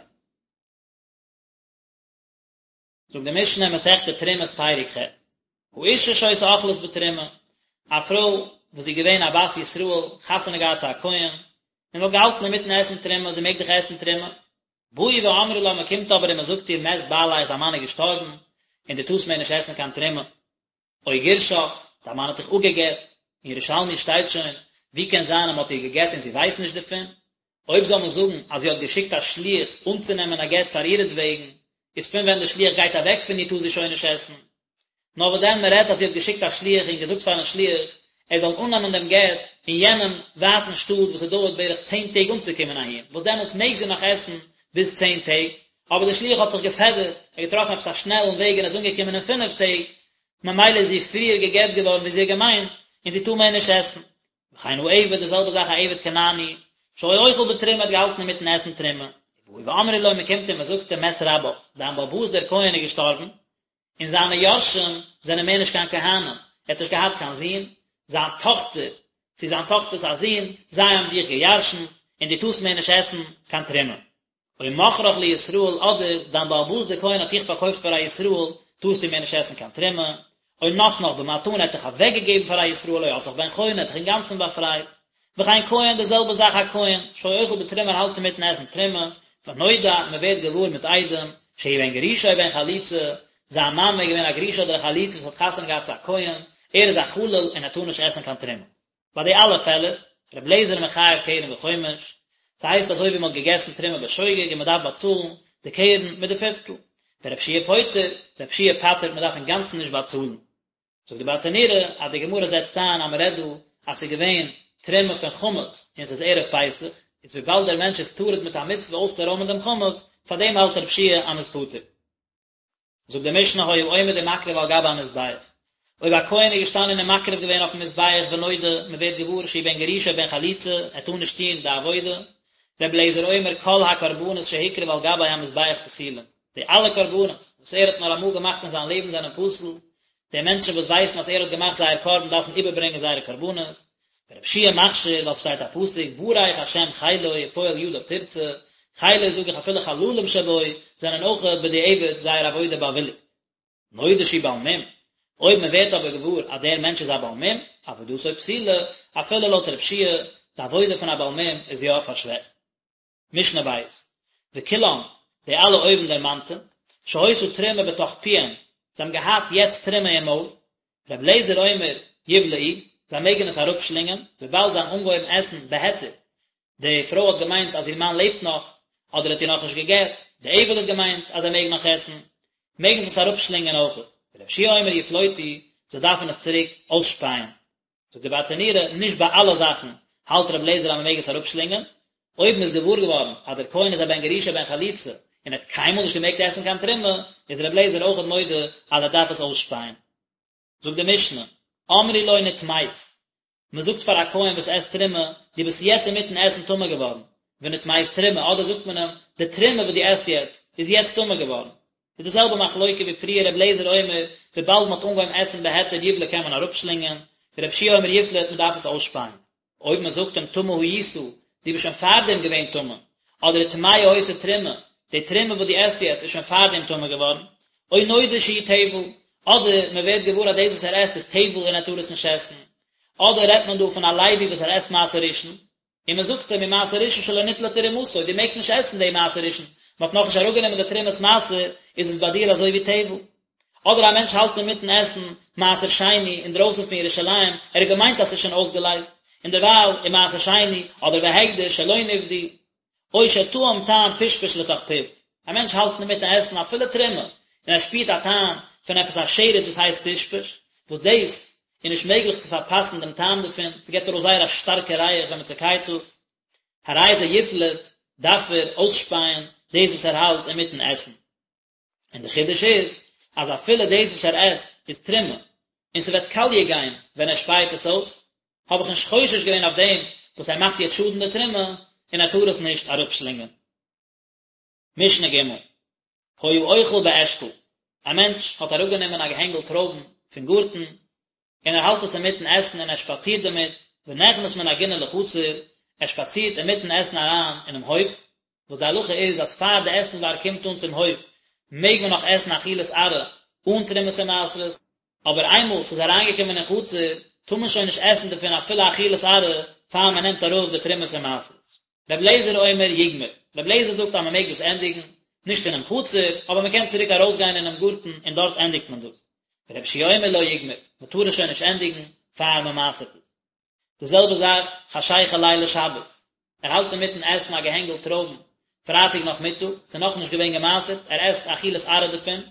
Speaker 1: זאגט די משנה אין מסכת תרומות פרק ח', האשה שהיתה אוכלת בתרומה, א פרוי וואס איז געווען א בת ישראל, חתונה געהאט צו א כהן, און האט געהאלטן אינמיטן עסן תרומה, זי מעג דאך עסן תרומה, באו ואמרו לה, מען קומט אבער און מען זאגט איר מת בעליך, דיין מאן איז געשטארבן, און דו טארסט מער נישט עסן קיין תרומה. או גירשך, דיין מאן האט דיך אפגע'גט, אין ירושלמי שטייט שוין, ווי קען זיין אז מען האט איר גע'גט און זי ווייסט נישט דערפון? אויב זאל מען זאגן אז זי האט געשיקט א שליח אנצונעמען א גט פאר אירעטוועגן, איז פון ווען דער שליח גייט אוועק פון איר טאר זי שוין נישט עסן. נאר וואס דען מען רעדט אז זי האט געשיקט א שליח און געזאגט פארן שליח ער זאל אננעמען דעם גט אין יענעם ווייטן שטאט וואס עס דויערט בערך צען טעג אנצוקומען אהין, וואס דעמאלטס מעג זי נאך עסן ביז צען טעג, אבער דער שליח האט זיך געפעדערט, ער האט געטראפן עפעס א שנעלן וועג און איז אנגעקומען אין פינף טעג, ממילא איז זי פריער גע'גט געווארן ווי זי האט געמיינט, און זי טאר מער נישט עסן. וכן העבד, די זעלבע זאך א עבד כנעני, שהיה אוכל בתרומה האט געהאלטן אינמיטן עסן תרומה, ובאו ואמרו לו, מען קומט און מען זאגט אים מת רבך, דיין בעל הבית דער כהן איז געשטארבן, און זיינע יורשים זענען מער נישט קיין כהנים, ער האט נישט געהאט קיין זון, זיין טאכטער, צו זיין טאכטער'ס א זון, זיי האבן דיך געירשנט, און דו טארסט מער נישט עסן קיין תרומה. או מכרך לישראל אדער דיין בעל הבית דער כהן האט דיך פארקויפט פאר א ישראל, טארסטו מער נישט עסן קיין תרומה, או נתנך במתנה ער האט דיך אוועקגעגעבן פאר א ישראל או עשאך בן חורין ער האט דיך אינגאנצן באפרייט, וכן כהן די זעלבע זאך א כהן, שהיה אוכל בתרומה ער האלט אינמיטן עסן תרומה, ונודע מען ווערט געוואר מיט עדים, שהוא בן גרושה או בן חלוצה, זיין מאמע איז געווען א גרושה אדער א חלוצה וואס האט חתונה געהאט צו א כהן, ער איז א חלל און ער טאר נישט עסן קיין תרומה. ביי די אלע פעלער, ר' אליעזר מחייב קרן וחומש, ס'הייסט אזוי ווי מ'האט געגעסן תרומה בשוגג און מ'דארף באצאלן די קרן מיט די פיפטל, ור' יהושע פוטר, ר' יהושע פטר'ט מ'דארף אינגאנצן נישט באצאלן. זאגט די ברטנורא אז די גמרא זעצט איין אז מ'רעדט דא אז ס'איז געווען תרומה פון חמץ און ס'איז ערב פסח, איז וויבאלד דער מענטש איז טרוד מיט א מצוה אויסצורוימען דעם חמץ, פארדעם האלט ר' יהושע אז מ'איז פטור. זאגט די משנה היה עומד ומקריב על גבי המזבח, אויב א כהן איז געשטאנען און מקריב געווען אויפן מזבח ונודע, מען ווערט געוואר שהוא בן גרושה או בן חלוצה, ער טאר נישט טון די עבודה, רבי אליעזר אומר כל הקרבנות שהקריב על גבי המזבח פסולין, די אלע קרבנות וואס ער האט נאר אמאל געמאכט אין זיין לעבן זענען פסול, די מענטשן וואס ווייסן אז ער האט געמאכט זייער קרבן דארפן איבערברענגען זייערע קרבנות, ורבי יהושע מכשיר ווייל ס'שטייט א פסוק ברך השם חילו ופועל ידיו תרצה, חילו זאג איך אפילו חללים שבו זענען אויך בדיעבד זייער עבודה באוויליגט. נודע שהוא בעל מום, אויב מען ווערט אבער געוואר אז דער מענטש איז א בעל מום, עבודתו פסולה, אפילו לויט רבי יהושע, די עבודה פון א בעל מום איז יא פארשוועכט. משנה בית, וכולם, די אלע אויבן דערמאנטע, שהיתה תרומה בתוך פיהם, זיי האבן געהאט יעצט תרומה אין מויל, ר' אליעזר אומר, יבלעו, זיי מעגן עס אראפשלינגען, וויבאלד זיי האבן אנגעהויבן עסן בהיתר, די פרוי האט געמיינט אז איר מאן לעבט נאך, אדער האט איר נאכנישט גע'גט, די עבד האט געמיינט אז ער מעג נאך עסן, מעגן זיי עס אראפשלינגען אויכעט, ר' יהושע אומר יפלוטו, זיי דארפן עס צוריק אויסשפייען. זאגט די ברטנורא, נישט ביי אלע זאכן האלט רבי אליעזר אז מען מעג עס אראפשלינגען, אויב מען איז געוואר געווארן אז דער כהן איז א בן גרושה בן חלוצה און ער האט קיינמאל נישט געמעגט עסן קיין תרומה, איז רבי אליעזר אויכעט מודה אז ער דארף עס אויסשפייען. זאגט די משנה, אמרו לו נטמאת, מען זאגט פאר א כהן וואס עסט תרומה, דו ביסט יעצט אינמיטן עסן טמא געווארן, ונטמאת תרומה, אדער זאגט מען אים, די תרומה וואס דו עסט יעצט, איז יעצט טמא געווארן. איז די זעלבע מחלוקה ווי פריער ר' אליעזר אומר וויבאלד מען האט אנגעהויבן עסן בהיתר יבלע קען מען אראפשלינגען, ור' יהושע אומר יפלוט מען דארף עס אויסשפייען. אויב מען זאגט אים טמא היית, דו ביסט שוין פארדעם געווען טמא, אדער טמאה היתה תרומה, די תרומה וואס דו עסט יעצט איז שוין פארדעם טמא געווארן, או נודע שהוא טבל, אדער מען ווערט געוואר אז דאס וואס ער עסט איז טבל און ער טאר עס נישט עסן, אדער רעדט מען דא פון א לוי וואס ער עסט מעשר ראשון, און מען זאגט אים ומעשר ראשון שלא ניטלה תרומתו, דו מעגסט נישט עסן די מעשר ראשון, מען האט נאכנישט אראפגענומען די תרומת מעשר, איז עס ביי דיר אזוי ווי טבל. אדער א מענטש האלט אינמיטן עסן מעשר שני אינדרויסן פון ירושלים, ער האט געמיינט אז ס'איז שוין אויסגעלייזט, און דערווייל איז מעשר שני, אדער והקדש שלא נפדו, או שטעם טעם פשפש לתוך פיו, א מענטש האלט אינמיטן עסן אפילו תרומה, און ער שפירט א טעם פון עפעס א שרץ וואס הייסט פשפש, וואס דאס איז נישט מעגליך צו פארפאסן דעם טעם דערפון, ס'געבט ארויס זייער א שטארקע ריח ווען מ'צעקייט עס, הרי זה יפלוט, דארף ער אויסשפייען דאס וואס ער האלט אינמיטן עסן. און די חידוש איז אז אפילו דאס וואס ער עסט איז תרומה און ס'וועט קאליע גיין ווען ער שפייעט עס אויס, האב איך נישט חושש געווען אויף דעם וואס ער מאכט יעצט שאדן די תרומה און ער טאר עס נישט אראפשלינגען. משנה ג' היה אוכל באשכול, א מענטש האט אראפגענומען א געהענגל טרויבן פון גארטן און ער האלט עס אינמיטן עסן און ער שפאצירט דערמיט, ונכנס מן הגינה לחצר, ער שפאצירט אינמיטן עסן אריין אינעם הויף, וואס די הלכה איז אז פאר די עסנווארג קומט אן צום הויף מעג מען נאך עסן אכילת עראי אן תרומות און מעשרות, אבער איינמאל ס'איז אריינגעקומען אין חצר טאר מען שוין נישט עסן דערפון אפילו אכילת עראי פאר מען נעמט אראפ די תרומות און מעשרות. רבי אליעזר אומר יגמור, רבי אליעזר זאגט אז מען מעג דאס ענדיגן, נישט אינעם חצר, אבער מען קען צוריק ארויסגיין אינעם גארטן און דארט ענדיגט מען דאס. רבי יהושע אומר לא יגמור, מען טאר עס שוין נישט ענדיגן פאר מען מעשר'ט עס. די זעלבע זאך חשיכה לילי שבת, ער האלט אינמיטן עסן א געהענגל טרויבן פרייטאג נאכמיטאג, ס'איז נאכנישט געווען געמעשר'ט, ער עסט אכילת עראי דערפון,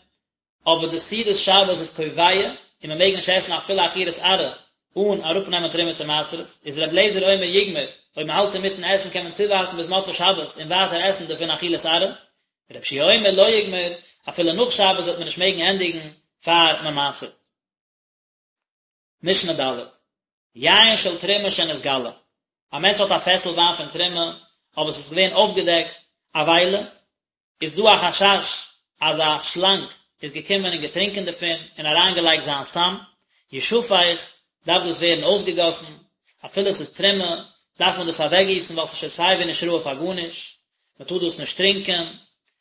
Speaker 1: אבער די סעודת שבת איז קובע און מען מעג נישט עסן אפילו אכילת עראי אן אראפנעמען תרומות און מעשרות, איז ר' אליעזר אומר יגמור, אויב מען האלט אינמיטן עסן קען מען צואווארטן ביז מוצאי שבת און ווייטער עסן דערפון אכילת עראי, ר' יהושע אומר לא יגמור, אפילו נאך שבת וועט מען נישט מעגן ענדיגן פאר מען מעשר'ט. משנה ד', יין של תרומה שנתגלה, א מענטש האט א פעסל וויין פון תרומה, אבער עס איז געווען אויפגעדעקט א וויילע, איז דא א חשש אז א שלאנג איז געקומען און געטרינקען דערפון און אריינגעלייגט זיין סם, ישפך, דארף דאס ווערן אויסגעגאסן, אפילו עס איז תרומה, דארף מען דאס אוועקגיסן ווייל עס איז שוין סיי ווי נישט ראוי פאר גארנישט, מען טאר דאס נישט טרינקען,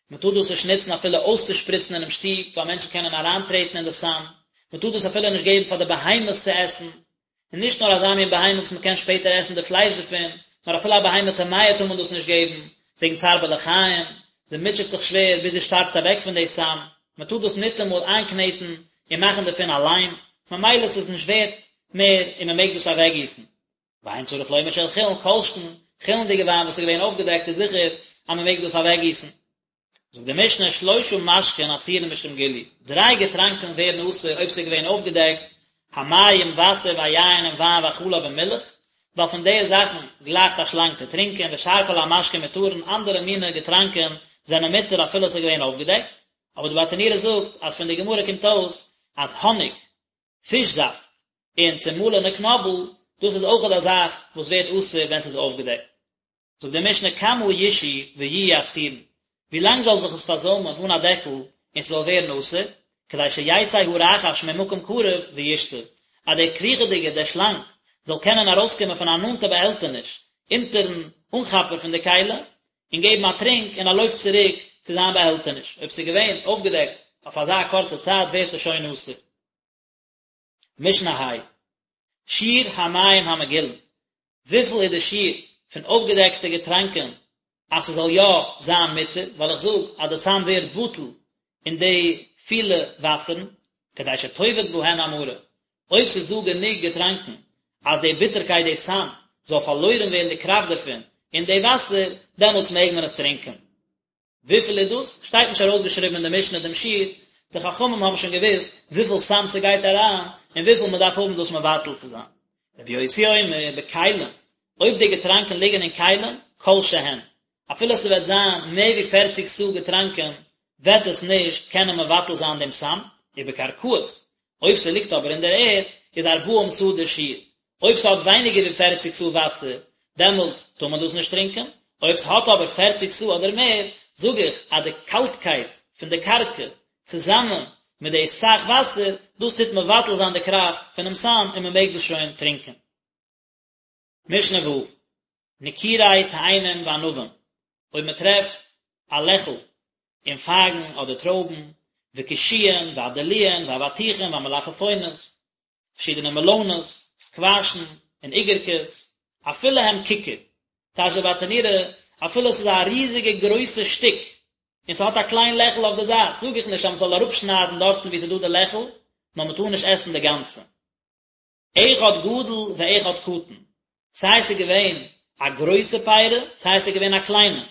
Speaker 1: מען טאר דאס נישט נוצן אפילו אויסצושפריצן אינעם שטוב, ווייל מענטשן קענען אריינטרעטן אין די סם, מען טאר דאס אפילו נישט געבן פאר די בהמות צו עסן, און נישט נאר אזא מין בהמה וואס מען קען שפעטער עסן די פלייש דערפון, נאר אפילו א בהמה טמאה טאר מען דאס נישט געבן, וועגן צער בעלי חיים, זי מוטשעט זיך שווער ביז זי שטארבט אוועק פון די סם, מען טאר דאס ניטאמאל איינקנעטן און מאכן דערפון א ליים, ממילא ס'איז נישט ווערט מער און מען מעג דאס אוועקגיסן. ואין צריך לומר של חולין, כל שכן, חולין'דיגע וויין וואס איז געווען אויפגעדעקט איז זיכער אז מען מעג דאס אוועקגיסן. זאגט די משנה שלושה משקין אסורין משום גילוי, דריי געטראנקען ווערן אסור אויב ס'איז געווען אויפגעדעקט, המים וואסער והיין און וויין והחלב און מילך, ווייל פון די זאכן גלייכט א שלאנג צו טרינקען, ושאר כל המשקין מותרין, אנדערע מיני געטראנקען זענען מותר אפילו ס'איז געווען אויפגעדעקט, אבער די ברטנורא זאגט אז פון די גמרא קומט אויס אז האניג, פיש זאפט, און צומאלענע קנאבל, דאס איז אויכעט א זאך וואס ווערט אסור ווען ס'איז אויפגעדעקט. זאגט די משנה כמה ישהו ויהיו אסורין, ווי לאנג זאל זיך עס פארזוימען אן א דעקל און ס'זאל ווערן אסור, כדי שיצא הרחש ממקום קרוב וישתה, אז דער קריכעדיגער, דער שלאנג, זאל קענען ארויסקומען פון א נאנטע באהעלטעניש אונטערן אנכאפער פון די כלי, און געבן א טרינק און א לויף צוריק צו זיין באהעלטעניש, אויב ס'איז געווען אויפגעדעקט אויף אזא קורצע צייט ווערט עס שוין אסור. משנה ה', שיעור המים המגולין, וויפיל איז די שיעור פון אויפגעדעקטע געטראנקען אז ס'זאל יא זיין מותר, ווייל איך זאג אז די סם ווערט בטל אין די פילע וואסערן, כדי שתאבד בהן המרה, אויב ס'איז דא גענוג געטראנקען אז די ביטערקייט די סם זאל פארלוירן ווערן די קראפט דערפון אין די וואסער, דעמאלטס מעג מען עס טרינקען. וויפיל איז דאס? שטייט נישט ארויסגעשריבן אין די משנה דעם שיעור, די חכמים האבן שוין געוואוסט וויפיל סם ס'גייט אריין און וויפיל מ'דארף האבן דאס מבטל צו זיין. רבי יוסי אומר, בכלים, אויב די געטראנקען ליגן אין כלים, כל שהן, אפילו ס'וועט זיין מער ווי פערציג סאה געטראנקען, וועט עס נישט קענען מבטל זיין דעם סם, ובקרקעות, אויב ס'ליגט אבער אין דער ערד, איז ארבעים סאה דער שיעור, אויב ס'האט ווייניגער ווי פערציג סאה וואסער, דעמאלטס טאר מען דאס נישט טרינקען, אויב ס'האט אבער פערציג סאה אדער מער, זאג איך אז די קאלטקייט פון די קרקע. צוזאמען מיט די סך וואסער, דאס טוט מבטל זיין די קראפט פונעם סם און מען מעג דאס שוין טרינקען. משנה ו', נקירי תאנים וענבים, אויב מען טרעפט א לעכל אין פייגן אדער טרויבן, וקישואין והדלועין והאבטיחים והמלפפונות, פארשידענע מעלאנעס, סקוואשן, און איגערקעס, אפילו הם ככר, טייטשט דער ברטנורא, אפילו עס איז א ריזיגע גרויסע שטיק, און ס'האט א קליין לעכל אויף די זייט, זאג איך נישט אז מ'זאל אראפשניידן דארטן וואו ס'איז דא די לעכל, נאר מ'טאר נישט עסן די גאנצע. אחד גדול ואחד קטן, סיי ס'איז געווען א גרויסע פירה, סיי ס'איז געווען א קליינע.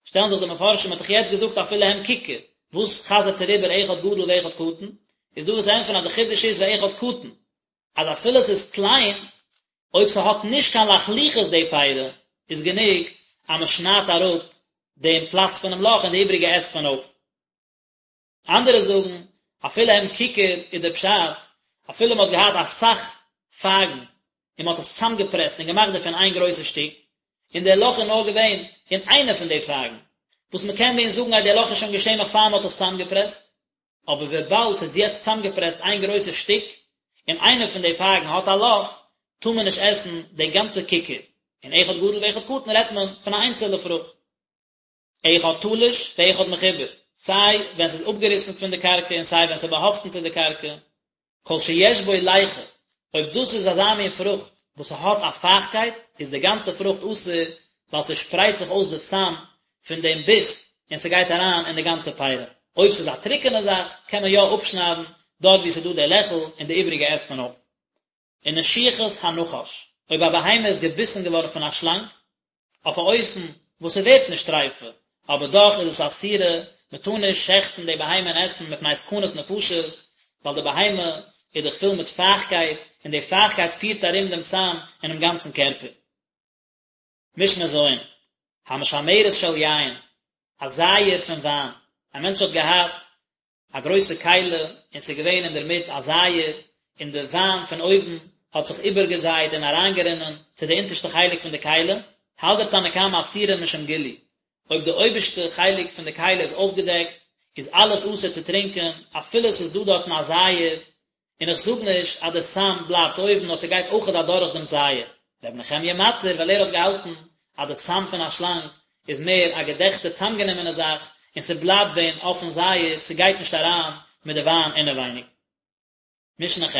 Speaker 1: שטעלן זיך די מפרשים, מ'האט דאך יעצט געזאגט אפילו הם ככר, וואס חזר'ט ער איבער אחד גדול ואחד קטן? איז דא וואס ענטפערן אז די חידוש איז ואחד קטן, אז אפילו ס'איז קליין, אויב ס'האט נישט קיין לחלוחית די פירה, איז גענוג אז מ'שניידט אראפ דעם פלאץ פונעם לאך און די איבריגע עסט מען אויף. אנדערע זאגן, אפילו הם ככר איז דער פשט, אפילו מען האט געהאט אסאך פייגן און מען האט עס צוזאמגעפרעסט און געמאכט דערפון איין גרויסע שטיק, און דער לאך איז נאר געווען אין איינע פון די פייגן, וואס מען קען ווען זאגן אז דער לאך איז שוין געשען נאך פאר מען האט עס צוזאמגעפרעסט, אבער וויבאלד ס'איז יעצט צוזאמגעפרעסט איין גרויסע שטיק, און איינע פון די פייגן האט א לאך, טאר מען נישט עסן די גאנצע ככר, און אחד גדול ואחד קטן רעדט מען פון א איינצעלע פרוכט. אחד תלוש ואחד מחובר, סיי ווען ס'איז אפגעריסן פון די קרקע און סיי ווען ס'איז באהאפטן צו די קרקע, כל שיש בו ליחה, אויב דאס איז אזא מין פרוכט וואס ס'האט א פייכקייט, איז די גאנצע פרוכט אסור, ווייל ס'שפרייט זיך אויס די סם פון דעם ביס און ס'גייט אריין אין די גאנצע פירה. אויב ס'איז א טרוקענע זאך, קען מען יא אפשניידן דארט וואו ס'איז דא די לעכל און די איבריגע עסט מען אויף. ונשיכת הנחש, אויב א בהמה איז געביסן געווארן פון א שלאנג, אויף א אופן וואס ס'ווערט נישט טריפה, אבער דאך איז עס אסורה, מ'טאר נישט שעכטן די בהמה און עסן מפני סכנת נפשות, ווייל די בהמה איז דאך פול מיט פייכקייט, און די פייכקייט פירט ארום דעם סם אינעם גאנצן קערפער. משנה ז', המשמרת של יין, א זייער פון וויין, א מענטש האט געהאט א גרויסע כלי און ס'איז געווען אינדערמיט א זייער, און די וויין פון אויבן האט זיך איבערגעזייט און אריינגערינען צו די אונטערשטע חלק פון די כלי, האלט דער תנא קמא אסורה משום גילוי, אויב די אויבערשטע חלק פון די כלי איז אויפגעדעקט, איז אלעס אסור צו טרינקען, אפילו ס'איז דא דארטן א זייער, און איך זאג נישט אז די סם בלייבט אויבן נאר ס'גייט אויכעט אדורך דעם זייער. ר' נחמיה מתיר ווייל ער האט געהאלטן אז די סם פון א שלאנג איז מער א געדעכטע צאמגענומענע זאך און ס'בלייבט ווען אויפן זייער ס'גייט נישט אריין מיט די וויין אינעווייניג. משנה ח'.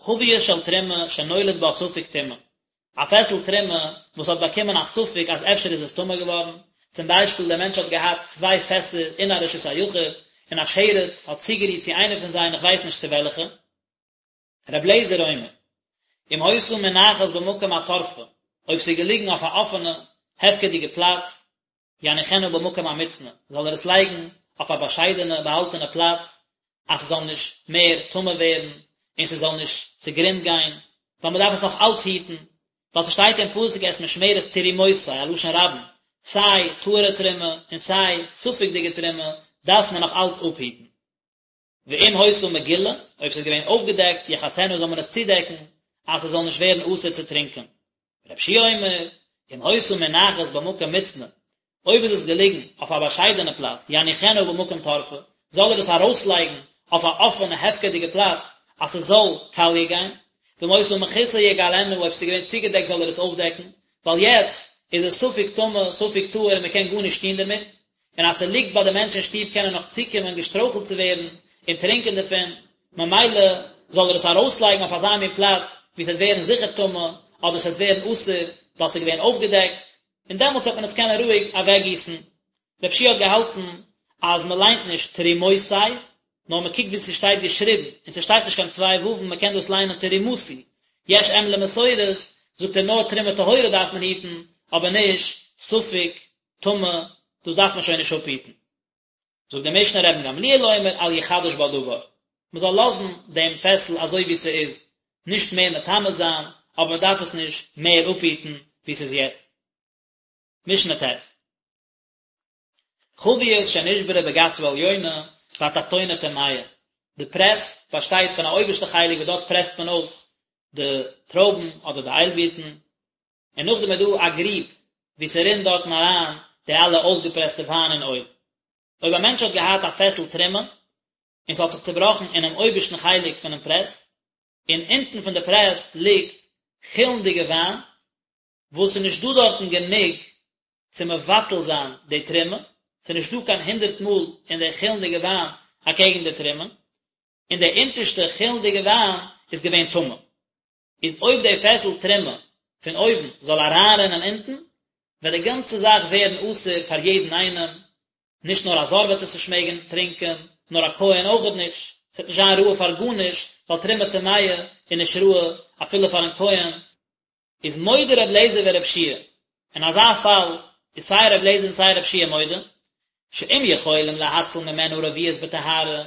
Speaker 1: חבית של תרומה שנולד בה ספק טומאה, א פעסל תרומה וואס האט באקומען א ספק אז אפשר איז עס טמא געווארן, צום ביישפיל דער מענטש האט געהאט צוויי פעסער אין א רשות היחיד, און א שרץ האט צוגערירט צו איינע פון זיי און איך ווייס נישט צו וועלכע. ר' אליעזר אומר, אם היתה מונחת במקום התורפה, אויב ס'איז געליגן אויף א אפענע, הפקר'דיגע פלאץ, יניחנה במקום המוצנע, זאל ער עס לייגן אויף א באשיידענע באהאלטענע פלאץ, אז ס'זאל נישט מער טמא ווערן, און ס'זאל נישט צוגרונד גיין, ווייל מ'דארף עס נאך אלץ היטן, ווייל ס'שטייט אין פסוק את משמרת תרומותי, א לשון רבים, סיי טהור'ע תרומה און סיי ספק'דיגע תרומה דארף מען נאך אלץ אפהיטן. ואם היתה מגולה, אויב ס'איז געווען אויפגעדעקט, יכסנה זאל מען עס צודעקן, אז ס'זאל נישט ווערן אסור צו טרינקען. רבי יהושע אומר, אם היתה מונחת במקום מוצנע, אויב איז עס געליגן אויף א באשיידענע פלאץ, יניחנה במקום תורפה, זאל ער עס ארויסלייגן אויף א אפענע הפקר'דיגע פלאץ, אז ס'זאל קאליע גיין. ואם היתה מכוסה יגלנה, אויב ס'איז געווען צוגעדעקט זאל ער עס אויפדעקן, ווייל יעצט איז עס ספק טמא ספק טהור און מ'קען גארנישט טון דערמיט. און אז ס'ליגט ביי די מענטש אין שטוב קען ער נאך צוקומען געשטרויכלט צו ווערן און טרינקען דערפון, ממילא זאל ער עס ארויסלייגן אויף אזא מין פלאץ וואו ס'וועט ווערן זיכער טמא, אדער ס'וועט ווערן אסור ווייל ס'איז געווען אויפגעדעקט, און דעמאלטס וועט מען עס קענען רואיג אוועקגיסן. רבי יהושע האט געהאלטן אז מ'ליינט נישט תרומותי, נאר מ'קוקט ווי ס'שטייט געשריבן, און ס'שטייט נישט קיין צוויי וואוון, מ'קען דאס ליינען תרומתי. יש אם למסורת, זאגט ער נאר תרומה טהורה דארף מען היטן, אבער נישט ספק טמא, דאס דארף מען שוין נישט אפהיטן. זאגט די משנה רבן גמליאל אומר אל יחדש בה דבר, מען זאל לאזן דעם פעסל אזוי ווי ס'איז, נישט מער מטמא זיין, אבער מען דארף עס נישט מער אפהיטן ווי ס'איז יעצט. משנה ט'. חבית שנשברה בגת העליונה והתחתונה טמאה, די פרעס באשטייט פון א אויבערשטע חלק וואס דארט פרעסט מען אויס די טרויבן אדער די איילבירטן, און נאכדעם איז דא א גריב וואו ס'רינט דארטן אריין די אלע אויסגעפרעסטע וויין און אויל. אויב א מענטש האט געהאט א פעסל תרומה, און ס'האט זיך צובראכן אינעם אויבערשטן חלק פונעם פרעס, און אונטן פון די פרעס ליגט חולין'דיגע וויין, וואס ס'איז נישט דא דארטן גענוג צו מבטל זיין די תרומה, ס'איז נישט דא קיין הונדרעט מאל אין די חולין'דיגע וויין אקעגן די תרומה, און די אונטערשטע חולין'דיגע וויין איז געווען טמא. איז אויב די פעסל תרומה פון אויבן זאל אריינרינען אונטן, וועט די גאנצע זאך ווערן אסור פאר יעדן איינעם, נישט נאר א זר וועט עס נישט מעגן טרינקען, נאר א כהן אויכעט נישט, עס וועט נישט זיין ראוי פאר גארנישט, ווייל תרומה טמאה איז נישט ראוי אפילו פארן כהן. איז מודה ר' לעזער ור' יהושע אין אזא פאל איז סיי ר' לעזער און סיי ר' יהושע מודה, שאם יכולים להציל ממנה רביעית בטהרה,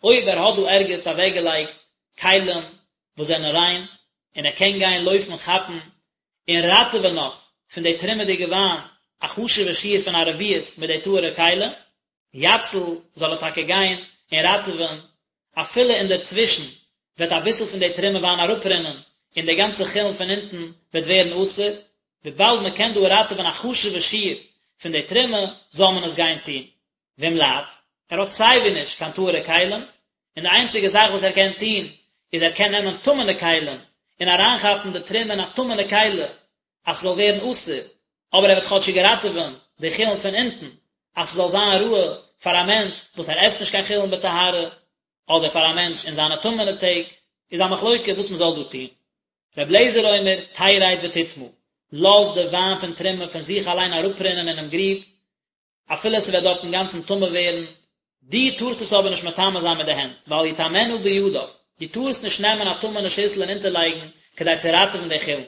Speaker 1: אויב ער האט דא ערגעץ אוועקגעלייגט כלים וואס זענען ריין, און ער קען גיין לויפן כאפן און ראטעווען נאך פון די תרומה'דיגע וויין א חשוב'ע שיעור פון א רביעית מיט די טהור'ע כלי, יציל, זאל ער טאקע גיין און ראטעווען, אפילו אינדערצווישן וועט אביסל פון די תרומה וויין אראפרינען און די גאנצע חולין פון אונטן וועט ווערן אסור, וויבאלד מען קען דא ראטעווען א חשוב'ע שיעור פון די תרומה, זאל מען עס גיין טון. ואם לאו, ער האט סייווי נישט קיין טהור'ע כלים, און די איינציגע זאך וואס ער קען טון איז ער קען נעמען טמא'נע כלים און אריינכאפן די תרומה אין א טמא'נע כלי אז ס'זאל ווערן אסור, אבער ער וועט כאטשיג ראטעווען די חולין פון אונטן אז ס'זאל זיין ראוי פאר א מענטש וואס ער עסט נישט קיין חולין בטהרה, אדער פאר א מענטש אין זיינע טמא'נע טעג, איז א מחלוקה וואס מ'זאל דא טון. ר' אליעזר אומר, תרד ותטמא, לאז די וויין פון תרומה פון זיך אליין אראפרינען אינעם גריב, אפילו ס'וועט דארט אינגאנצן טמא ווערן, דו טארסט עס אבער נישט מטמא זיין מיט די הענט, ואל יטמאנה בידיו, דו טארסט נישט נעמען א טמא'נע שיסל און אונטערלייגן כדי צו ראטעווען די חולין.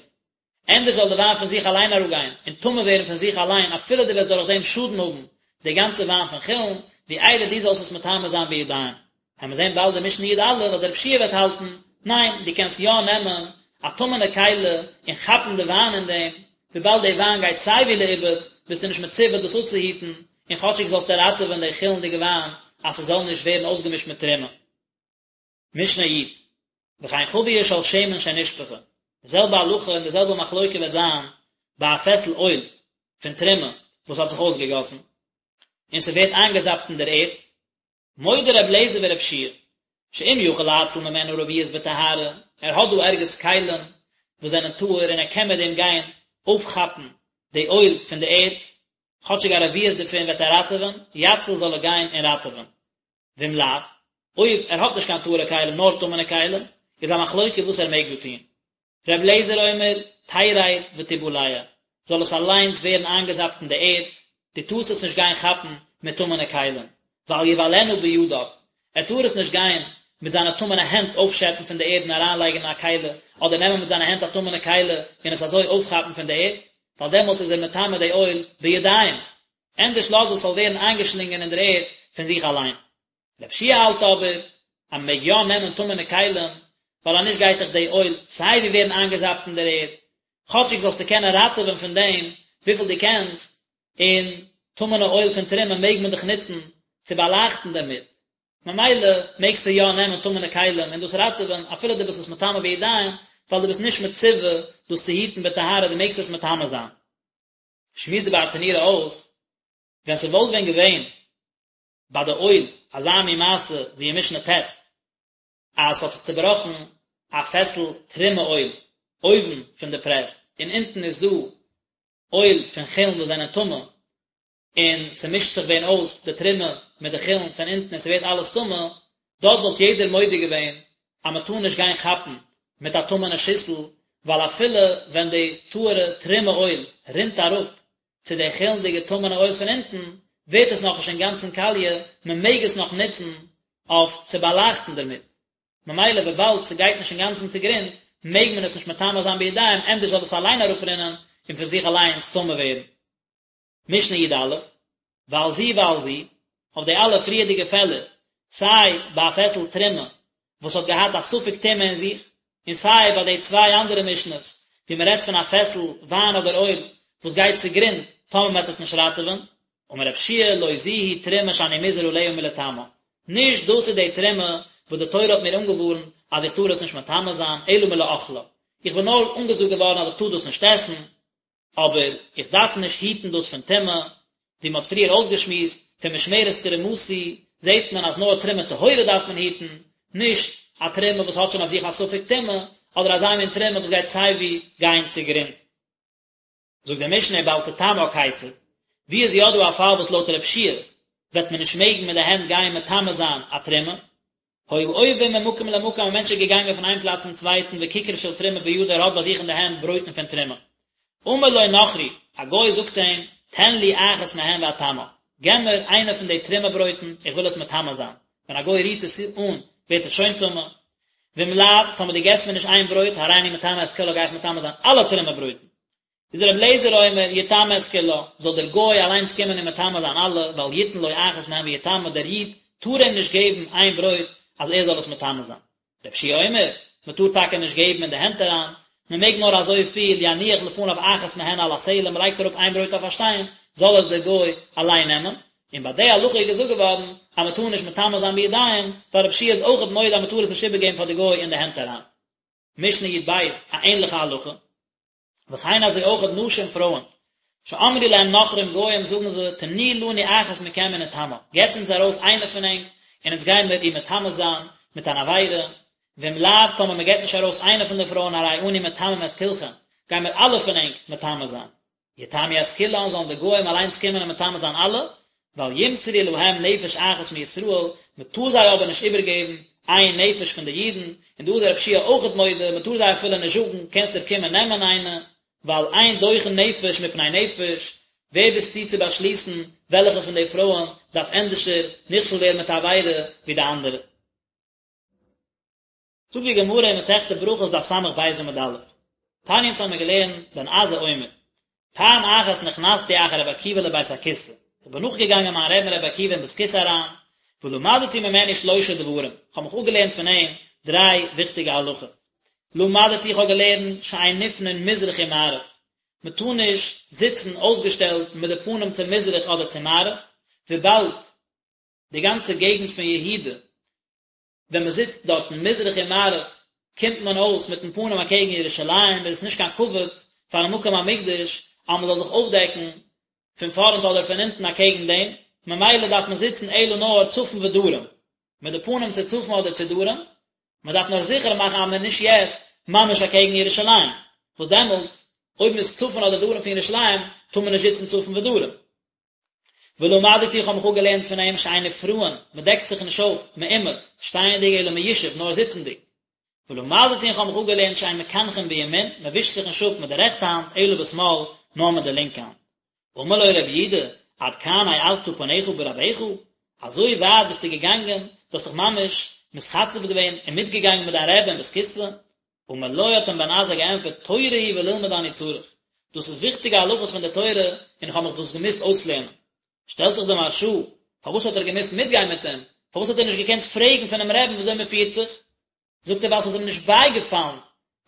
Speaker 1: ענדערש זאל די וויין פון זיך אליין אראפגיין און טמא ווערן פון זיך אליין אפילו דו וועסט דורך דעם שאדן האבן די גאנצע וויין פון חולין, ווי איידער דו זאלסט עס מטמא זיין בידיים. וועלן מיר זען באלד אין משנה י"א אז רבי יהושע וועט האלטן, ניין, דו קענסט יא נעמען א טמא'נע כלי און כאפן די וויין אין דעם, וויבאלד די וויין גייט סייווי לאיבוד, ביסטו נישט מצווה דאס אפצוהיטן, און כאטשיג זאלסטו ראטעווען די חולין'דיגע וויין אז ס'זאל נישט ווערן אויסגעמישט מיט תרומה. משנה י', וכן חבית של שמן שנשפכה, די זעלבע הלכה און די זעלבע מחלוקה וועט זיין ביי א פעסל אויל פון תרומה וואס האט זיך אויסגעגאסן, און ס'ווערט איינגעזאפט אין דער ערד, מודה ר' אליעזר ור' יהושע שאם יכול להציל ממנה רביעית בטהרה, ער האט דא ערגעץ כלים וואס זענען טהור און ער קען מיט דעם גיין אויפכאפן די אויל פון די ערד, כאטשיג א רביעית דערפון וועט ער ראטעווען, יציל זאל ער גיין און ראטעווען. ואם לאו, אויב ער האט נישט קיין טהור'ע כלים נאר טמא'נע כלים, איז א מחלוקה וואס ער מעג דא טון. ר' אליעזר אומר, תרד ותבלע, זאל עס אליינס ווערן איינגעזאפט אין די ערד, דו טארסט עס נישט גיין כאפן מיט טמא'נע כלים, ואל יבלענה בידיו, ער טאר עס נישט גיין מיט זיינע טמא'נע הענט אויפשעפן פון די ערד און אריינלייגן אין א כלי, אדער נעמען מיט זיינע הענט א טמא'נע כלי און עס אזוי אויפכאפן פון די ערד, ווייל דעמאלטס איז ער מטמא די אויל בידיים, ענדערש לאז עס זאל ווערן איינגעשלינגען אין דער ערד פון זיך אליין. רבי יהושע האלט אבער אז מען מעג יא נעמען טמא'נע כלים, ווייל אז נישט גייט דאך די אויל סיי ווי ווערן איינגעזאפט אין דער ערד, כאטשיג זאלסטו קענען ראטעווען פון דעם וויפיל דו קענסט, און טמא'נע אויל פון תרומה מעג מען דאך נוצן צו באלייכטן דערמיט, ממילא מעגסטו יא נעמען טמא'נע כלים און דאס ראטעווען אפילו דו ביסט עס מטמא בידיים, ווייל דו ביסט נישט מצווה דאס צו היטן בטהרה, דו מעגסט עס מטמא זיין. שמועסט די ברטנורא אויס, ווען ס'וואלט ווען געווען ביי די אויל אזא מין מעשה ווי אין משנה ט', אז ס'האט זיך צובראכן א פעסל תרומה אויל אויבן פון די פרעס, און אונטן איז דא אויל פון חולין וואס זענען טמא, און ס'מישט זיך ווען אויס די תרומה מיט די חולין פון אונטן און ס'ווערט אלעס טמא, דארט וואלט יעדער מודה געווען אז מ'טאר נישט גיין כאפן מיט א טמא'נע שיסל, ווייל אפילו ווען די טהור'ע תרומה אויל רינט אראפ צו די חולין'דיגע טמא'נע אויל פון אונטן, ווערט עס נאכנישט אינגאנצן קאליע, מ'מעג עס נאך נוצן אויף צו באלייכטן דערמיט. ממילא וויבאלד ס'גייט נישט אינגאנצן צוגרונד, מעג מען עס נישט מטמא זיין בידיים, ענדערש זאל עס אליין אראפרינען און פון זיך אליינס טמא ווערן. משנה י"א, ועל זו ועל זו, אויף די אלע פריערדיגע פעלער, סיי ביי א פעסל תרומה וואס האט געהאט א ספק טומאה אין זיך, און סיי ביי די צוויי אנדערע משנה'ס וואו מען רעדט פון א פעסל וויין אדער אויל וואס גייט צוגרונד טאמער מען וועט עס נישט ראטעווען, אמר רב יהושע לא זו היא תרומה שאני מוזהר עליה מלטמאה, נישט דאס איז די תרומה וואס די תורה האט מיר אנגעווארנט אז איך טאר עס נישט מטמא זיין, אלא מלאכלה, איך בין נאר אנגעזאגט געווארן אז איך טאר דאס נישט עסן, אבער איך דארף נישט היטן דאס פון טומאה, ווי מען האט פריער אויסגעשמועסט, פון משמרת תרומתי. זעט מען אז נאר תרומה טהורה דארף מען היטן, נישט א תרומה וואס האט שוין אויף זיך א ספק טומאה, אדער אזא מין תרומה וואס גייט סייווי גיין צוגרונד. זאגט די משנה ובל תטמאה כיצד, ווי איז יא דא א פאל וואס לויט רב שיע וועט מען נישט מעגן מיט די הענט גיין מטמא זיין א תרומה? היה עובר ממקום למקום א מענטש איז געגאנגען פון איין פלאץ צום צווייטן וכיכר של תרומה בידו ער האט ביי זיך אין די הענט ברויטן פון תרומה. אמר לו נכרי, א גוי זאגט אים, תן לי אחת מהן ואטמאה, געב מיר איינע פון די תרומה ברויטן, איך וויל עס מטמא זיין, ווען א גוי רירט עס אן ווערט עס שוין טמא, ואם לאו, טאמער דו געבסט מיר נישט איין ברויט, הריני מטמא את כולה גיי איך מטמא זיין אלע תרומה ברויטן. איז רבי אליעזר אומר, יטמא את כולה, זאל דער גוי אליינס קומען און מטמא זיין אלע, ואל יתן לו אחת מהן ויטמא, דער איד טאר אים נישט געבן איין ברויט אז ער זאל עס מטמא זיין. רבי יהושע אומר, מען טאר טאקע נישט געבן אין די הענט אריין, מען מעג נאר אזוי פיל, יניח לפניו אחת מהן על הסלע, מען לייגט אראפ איין ברויט אויף א שטיין, זאל עס דער גוי אליין נעמען, און ביי די הלכה איז געזאגט געווארן אז מען טאר נישט מטמא זיין בידיים, ווייל רבי יהושע איז אויכעט מודה אז מען טאר עס נישט איבערגעבן פאר די גוי אין די הענט אריין. משנה י"ב, א ענליכע הלכה. וכן אזוי אויכעט נשים פרויען, שאמרו להם נכרים גוים זאגן זיי, תנו לנו אחת מכם ונטמאה, געטס אונז ארויס איינע פון ענק, און אונז גיימיר איר מטמא זיין מיט אן עבירה, ואם לאו, טאמער מען געט נישט ארויס איינע פון די פרויען הרי אנו מטמאים את כולכם, גיימיר אלע פון ענק מטמא זיין. יטמאו את כולן זאלן די גוים אליינס קומען און מטמא זיין אלע, ואל ימסרו להם נפש אחת מישראל, מען טאר זיי אבער נישט איבערגעבן איין נפש פון די אידן, און דא איז רב יהושע אויכעט מודה, מען טאר זיי אפילו נישט זאגן, קענסט דיר קומען נעמען איינע, ווייל אין דוחין נפש מפני נפש, ווער ביסטו צו באשליסן וועלכע פון די פרויען דארף ענדערשער נכשל ווערן מיט א עבירה ווי די אנדערע? זאגט די גמרא אין מסכת ברכות דף ס"ב עמוד א', תניא אונז האמיר געלערנט בן עזאי אומר, פעם אחת נכנסתי אחר רבי עקיבא לבית הכסא, איך בין נאכגעגאנגען מיין רבי'ן רבי עקיבא אין בית כסא אריין, ולמדתי ממנו שלושה דברים, איך האב מיך אפגעלערנט פון אים דריי וויכטיגע הלכות, למדתי איך האב געלערנט שאין נפנין מזרח ומערב, מען טאר נישט זיצן אויסגעשטעלט מיט די פנים צו מזרח אדער צו מערב, וויבאלד די גאנצע געגנט פון יהודה ווען מען זיצט דארטן מזרח און מערב קומט מען אויס מיטן פנים אקעגן ירושלים, איז עס נישט קיין כבוד פארן מקום המקדש אז מען זאל זיך אויפדעקן פון פארנט אדער פון הינטן אקעגן דעם, ממילא דארף מען זיצן אלא נאר צפון ודרום, מיט די פנים צו צפון אדער צו דרום, מען דארף נאר זיכער מאכן אז מען איז נישט יעצט ממש אקעגן ירושלים, וואס דעמאלטס אויב מען איז צפון אדער דרום פון ירושלים טאר מען נישט זיצן צפון ודרום. ולמדתי איך האב מיך אפגעלערנט פון אים שאין נפרעין, מען דעקט זיך נישט אויף, מעומד, שטייענדיג אלא מיושב, נאר זיצנדיג. ולמדתי איך האב מיך אפגעלערנט שאין מקנחין בימין, מען ווישט זיך נישט אפ מיט די רעכטע האנט, אלא בשמאל, נאר מיט די לינקע האנט. אמר לו רבי יהודה, עד כאן העזת פניך ברבך? אזוי ווייט ביסטו געגאנגען, דו האסט זיך ממש מתחצף געווען און מיטגעגאנגען מיט דיין רבי אין בית כסא? אמר לו האט אים בן עזאי געענטפערט תורה היא וללמוד אני צריך, דאס איז וויכטיגע הלכות פון די תורה און איך האב מיך דאס געמוזט אויסלערנען. שטעלט זיך די מהרש"א, פארוואס האט ער געמוזט מיטגיין מיט אים? פארוואס האט ער נישט געקענט פרעגן פונעם רעבן וויאזוי מען פירט זיך? זאגט ער ווייל ס'איז אים נישט בייגעפאלן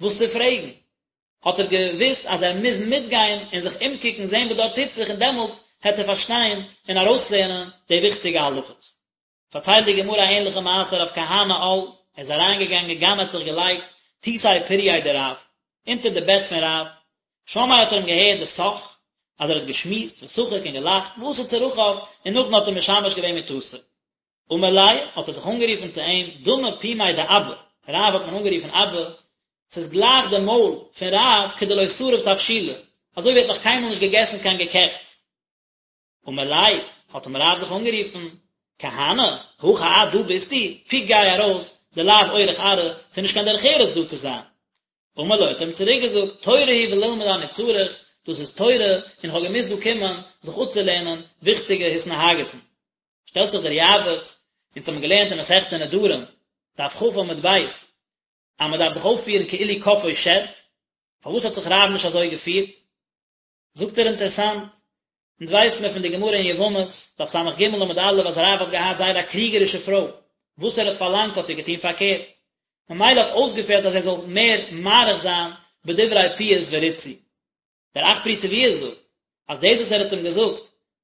Speaker 1: וואס צו פרעגן, האט ער געוואוסט אז ער מוז מיטגיין און זיך אומקוקן זען וואס דארט טוט זיך און דעמאלט העט ער פארשטיין און ארויסלערנען די וויכטיגע הלכות. פארציילט די גמרא א ענליכע מעשה רב כהנא על, ער איז אריינגעגאנגען גנא האט זיך געלייגט תותי פורייה דרב, אונטער די בעט פון רב, שמעיה האט ער אים געהערט דשח, אז ער האט געשמועסט ושחק און געלאכט, ועשה צרכיו, און נאכדעם האט ער משמש געווען מטתו. אמר ליה, האט ער זיך אנגערופן צו אים, דמי פומיה דאבא, רב האט מען אנגערופן אבא, ס'איז גלייך די מויל פון רב כדלא שריף תבשילא, אזוי ווי ער האט נאך קיינמאל נישט געגעסן קיין געקעכטס. אמר ליה, האט אים רב זיך אנגערופן, כהנא, הכא את, דא ביסטו, פוק גיי ארויס, דלאו אורח ארעא, ס'איז נישט קיין דרך ארץ דא צו זיין. אמר לו, האט ער אים צוריק געזאגט, תורה היא וללמוד אני צריך, דאס איז תורה, און איך האב געמוזט דא קומען זיך אפצולערנען וויכטיגע התנהגות'ן. שטעלט זיך דער יעבץ, אונז האבן געלערנט אין מסכת נדרים, דף כ עמוד ב', אז מען דארף זיך אויפפירן כאילו כפאו שד, פארוואס האט זיך רב נישט אזוי געפירט? זאגט ער אינטערעסאנט, אונז ווייסט מען פון די גמרא אין יבמות, דף ס"ג עמוד א', אז רב האט געהאט זייער א קריגערישע פרוי, וואס ער האט פארלאנגט האט זי געטון פארקערט, ממילא האט אויסגעפעלט אז ער זאל מער מאריך זיין בדברי פיוס וריצוי. דער אך פרי תבואה זאגט, אז דאס וואס ער האט אים געזאגט,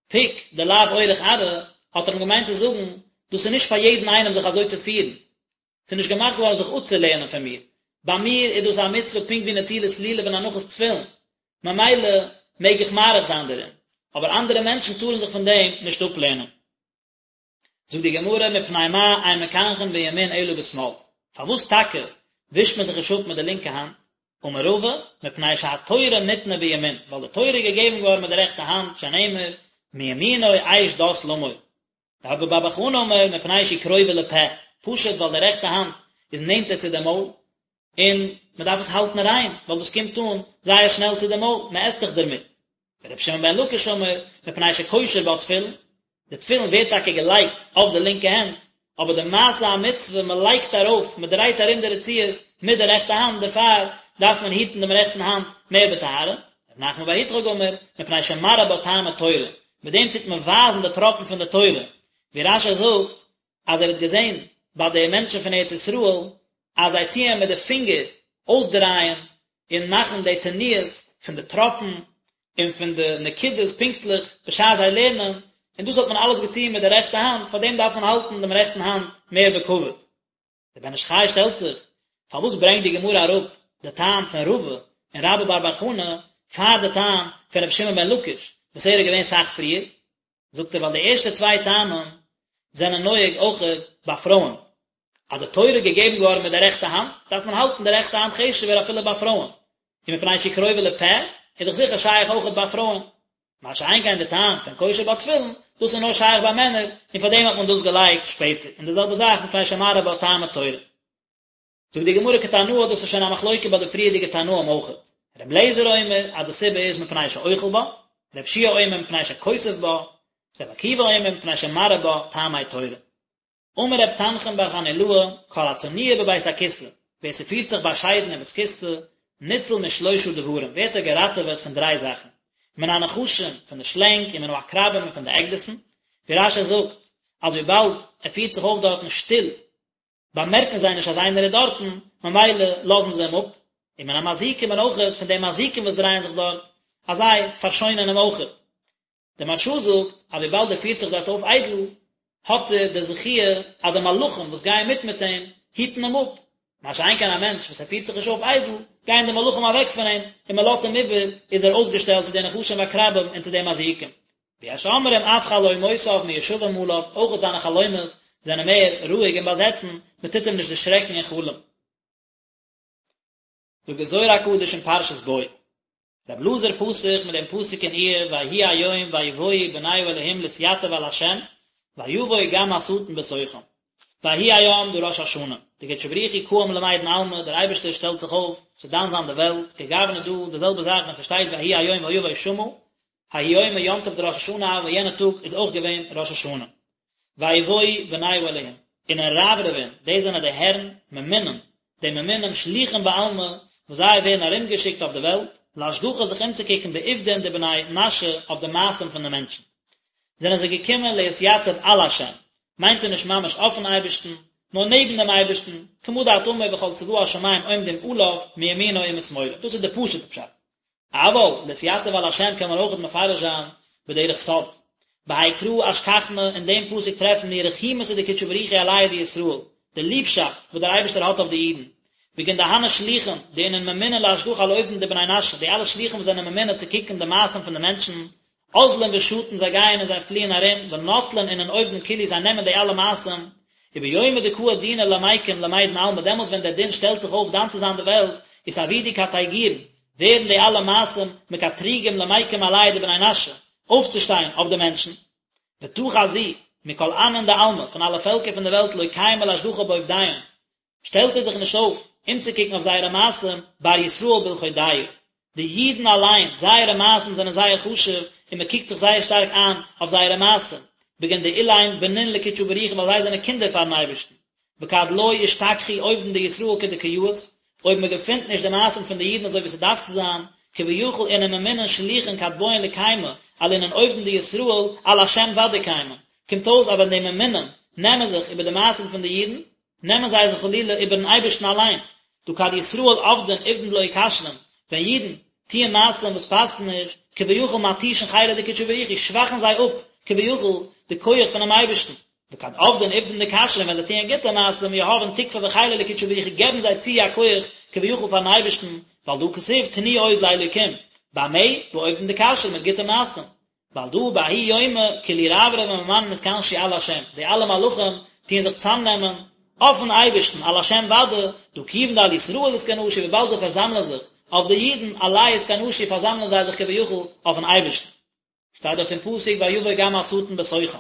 Speaker 1: פוק דלאו אורח ארעא, האט ער אים געמיינט צו זאגן, דאס איז נישט פאר יעדן איינעם זיך אזוי צו פירן, ס'איז נישט געמאכט געווארן זיך אפצולערנען פון מיר. ביי מיר איז דאס א מצוה פונקט ווי נטילת לולב און הנחת תפילין, ממילא מעג איך מאריך זיין דערין, אבער אנדערע מענטשן טארן זיך פון דעם נישט אפלערנען. זאגט די גמרא מפני מה אין מקנחין בימין אלא בשמאל, פארוואס טאקע ווישט מען זיך נישט אפ מיט די לינקע האנט, אמר רבא, מפני שהתורה ניתנה בימין, ווייל די תורה איז געגעבן געווארן מיט די רעכטע האנט, שנאמר, מימינו אש דת למו. רבה בר בר חנה אמר, מפני שהיא קרובה לפה, פשוט ווייל די רעכטע האנט איז נענטער צו די מויל, און מען דארף עס האלטן ריין, ווייל דאס קומט אן זייער שנעל צו די מויל, מען עסט דאך דערמיט. ורבי שמעון בן לקיש אמר, מפני שקושר בה תפילין, די תפילין ווערט טאקע געלייגט אויף די לינקע הענט, אבער די מעשה המצוה, מען לייגט ארויף, מען דרייט ארום די רצועות מיט די רעכטע האנט, דערפאר דארף מען היטן דעם רעכטן האנט מער בטהרה. רב נחמן בר יצחק אמר, מפני שמראה בה טעמי תורה, מיט דעם טוט מען ווייזן די טראפן פון די תורה, ווי רש"י זאגט אז ער האט געזען ביי די מענטשן פון ארץ ישראל אז זיי טוען מיט די פינגער אויסדרייען און מאכן די תנועות פון די טראפן און פון די נקודות פונקטליך בשעת זיי לערנען, און דאס האט מען אלעס געטון מיט די רעכטע האנט, פאר דעם דארף מען האלטן דעם רעכטן האנט מער בכבוד. דער בן איש חי שטעלט זיך, פארוואס ברענגט די גמרא אראפ די טעם פון רבא און רבה בר בר חנה פאר די טעם פון רבי שמעון בן לקיש וואס ער איז געווען סאך פריער? זאגט ער ווייל די ערשטע צוויי טעמים זענען נוהג אויכעט ביי פרויען, אז די תורה איז געגעבן געווארן מיט די רעכטע האנט, דארף מען האלטן די רעכטע האנט חשוב'ער אפילו ביי פרויען, און מפני שהיא קרובה לפה איז דאך זיכער שייך אויכעט ביי פרויען. מה שאין כן די טעם פון קושר בה תפילין, דאס איז נאר שייך ביי מענער, און פאר דעם האט מען דאס געלייגט שפעטער, און די זעלבע זאך מפני שמראה בה טעמי תורה. זאגט די גמרא כתנאי דאס איז שוין א מחלוקה ביי די פריערדיגע תנאים אויכעט, ר' אליעזר אומר אז די סיבה איז מפני שאוכל בה, ר' יהושע אומר מפני שכותב בה, ר' עקיבא אומר מפני שמראה בה טעמי תורה. אמר ר' תנחום בר חנילאי, כל הצנוע בבית הכסא, ווער ס'פירט זיך באשיידן אין בית כסא, ניצל משלושה דברים, ווערט ער געראטעוועט פון דריי זאכן, מן הנחשים, פון די שלענג, ומן העקרבים און פון די עקדיסן, ווי רש"י זאגט, אז וויבאלד ער פירט זיך אויף דארטן שטיל, באמערקן זיי נישט אז איינער איז דארטן, ממילא לאזן זיי אים אפ, ומן המזיקים און אויכעט פון די מזיקים וואס דרייען זיך דארט, אז זיי פארשוינען אים אויכעט. דער מהרש"א זאגט אז וויבאלד ער פירט זיך דארט אויף איידל, האט ער די זכיה אז די מלאכים וואס גייען מיט מיט אים, היטן אים אפ, מה שאין כן א מענטש וואס ער פירט זיך נישט אויף איידל, גייען די מלאכים אוועק פון אים, און מען לאזט אים איבער, איז ער אויסגעשטעלט צו די נחשים ועקרבים און צו די מזיקים. ויש אומרים אף חלומותיו מיושבים עליו, אויכעט זיינע חלומות זענען מער רואיג און באזעצן, מען טוט אים נישט דערשרעקן אין חלום. זאגט דער זוהר הקדוש אין פרשת בא, רבי אלעזר פתח מיט דעם פסוק אין איוב ויהי היום ויבואו בני האלהים להתייצב על ה' ויבוא גם השטן בתוכם. ויהי היום דא ראש השנה, דקודשא בריך הוא קאים למידן עלמא, דער אייבערשטער שטעלט זיך אויף צו דן זיין די וועלט, כגוונא דא, די זעלבע זאך ווען ס'שטייט ויהי היום ויבוא שמה, ההוא יומא יום טוב דראש השנה הוה, יענע טאג איז אויך געווען ראש השנה. ויבואו בני האלהים, אינון רברבין, דאס זענען די הערן, ממונין, די ממונים שליחין בעלמא, וואס זיי ווערן ארומגעשיקט אויף די וועלט, לאשגחא זיך אומצוקוקן בעובדין דבני נשא אויף די מעשים פון די מענטשן. זענען זיי געקומען להתייצב על השם, מיינט ער נישט ממש אויפן אייבערשטן, נאר נעבן דעם אייבערשטן, כמה דאת אמר וכל צבא השמים עומדים עליו מימינו ומשמאלו, דאס איז די פשוט'ע פשט. אבל להתייצב על השם קען מען אויכעט מפרש זיין בדרך סוד. בהאי קרא אשכחנא, אין דעם פסוק טרעפן מיר רחימותא דקודשא בריך הוא עלייהו דישראל, די ליבשאפט וואס דער אייבערשטער האט אויף די אידן. בגין דהני שליחין, דאינון ממונין לאשגחא על עובדין דבני נשא, די אלע שליחים וואס זענען ממונה צו קוקן די מעשים פון די מענטשן, אזלין ושטין זיי גייען און זיי פליען ארום, ונטלין אינון עובדין כולהו זיי נעמען די אלע מעשים, וביומא דקאי דינא למיקם למידן עלמא דעמאלטס ווען דער דין שטעלט זיך אויף דן צו זיין די וועלט, אתעבידו קטיגורין, ווערן די אלע מעשים מקטריגים למיקם עלייהו דבני נשא, אויפצושטיין אויף די מענטשן. ותא חזי, מכל עמין דעלמא, פון אלע פעלקער פון די וועלט לא קיימי לאשגחא בעובדיהון, שטעלט ער זיך נישט אויף אומצוקוקן אויף זייערע מעשים, בר ישראל בלחודייהו. די אידן אליין, זייערע מעשים זענען זייער חשוב, און מען קוקט זיך זייער שטארק איין אויף זייערע מעשים, בגין דאילין בנין לקודשא בריך הוא ווייל זיי זענען קינדער פארן אייבערשטן. וכד לא אשתכחו עובדין דישראל כדקא יאות, אויב מען געפינט נישט די מעשים פון די אידן אזוי ווי ס'דארף צו זיין, כביכול אינון ממונין שליחין כד בעאן לקיימא על אינון עובדין דישראל על השם ודאי קיימין, קומט אויס אז ווען די ממונים נעמען זיך איבער די מעשים פון די אידן, נעמען זיי זיך חלילה איבערן אייבערשטן אליין, דהא כד ישראל עבדין עובדין דלא כשרין, ווען אידן טוען מעשים וואס פאסן נישט, כביכול מתישין חילא דקודשא בריך הוא, שוואכן זיי אפ כביכול די כח פונעם אייבערשטן, וכד עבדין עובדין דכשרין ווען זיי טוען גוטע מעשים יהבין תוקפא וחילא לקודשא בריך הוא געבן זיי צו א כח כביכול פארן אייבערשטן, ווייל דהא כתיב תנו עוז לאלוקים, במה? בעובדין דכשרין מיט גוטע מעשים. ועל דא בההוא יומא כולהו רברבי וממנין אתכנשו על השם, די אלע מלאכים טוען זיך צאמנעמען אויפן אייבערשטן, על השם ודאי, דהא כיוון דעל ישראל אתכנשו וויבאלד זיי פארזאמלען זיך אויף די אידן, עליה אתכנשו פארזאמלען זיי זיך כביכול אויפן אייבערשטן. שטייט דארט אין פסוק ויבא גם השטן בתוכם,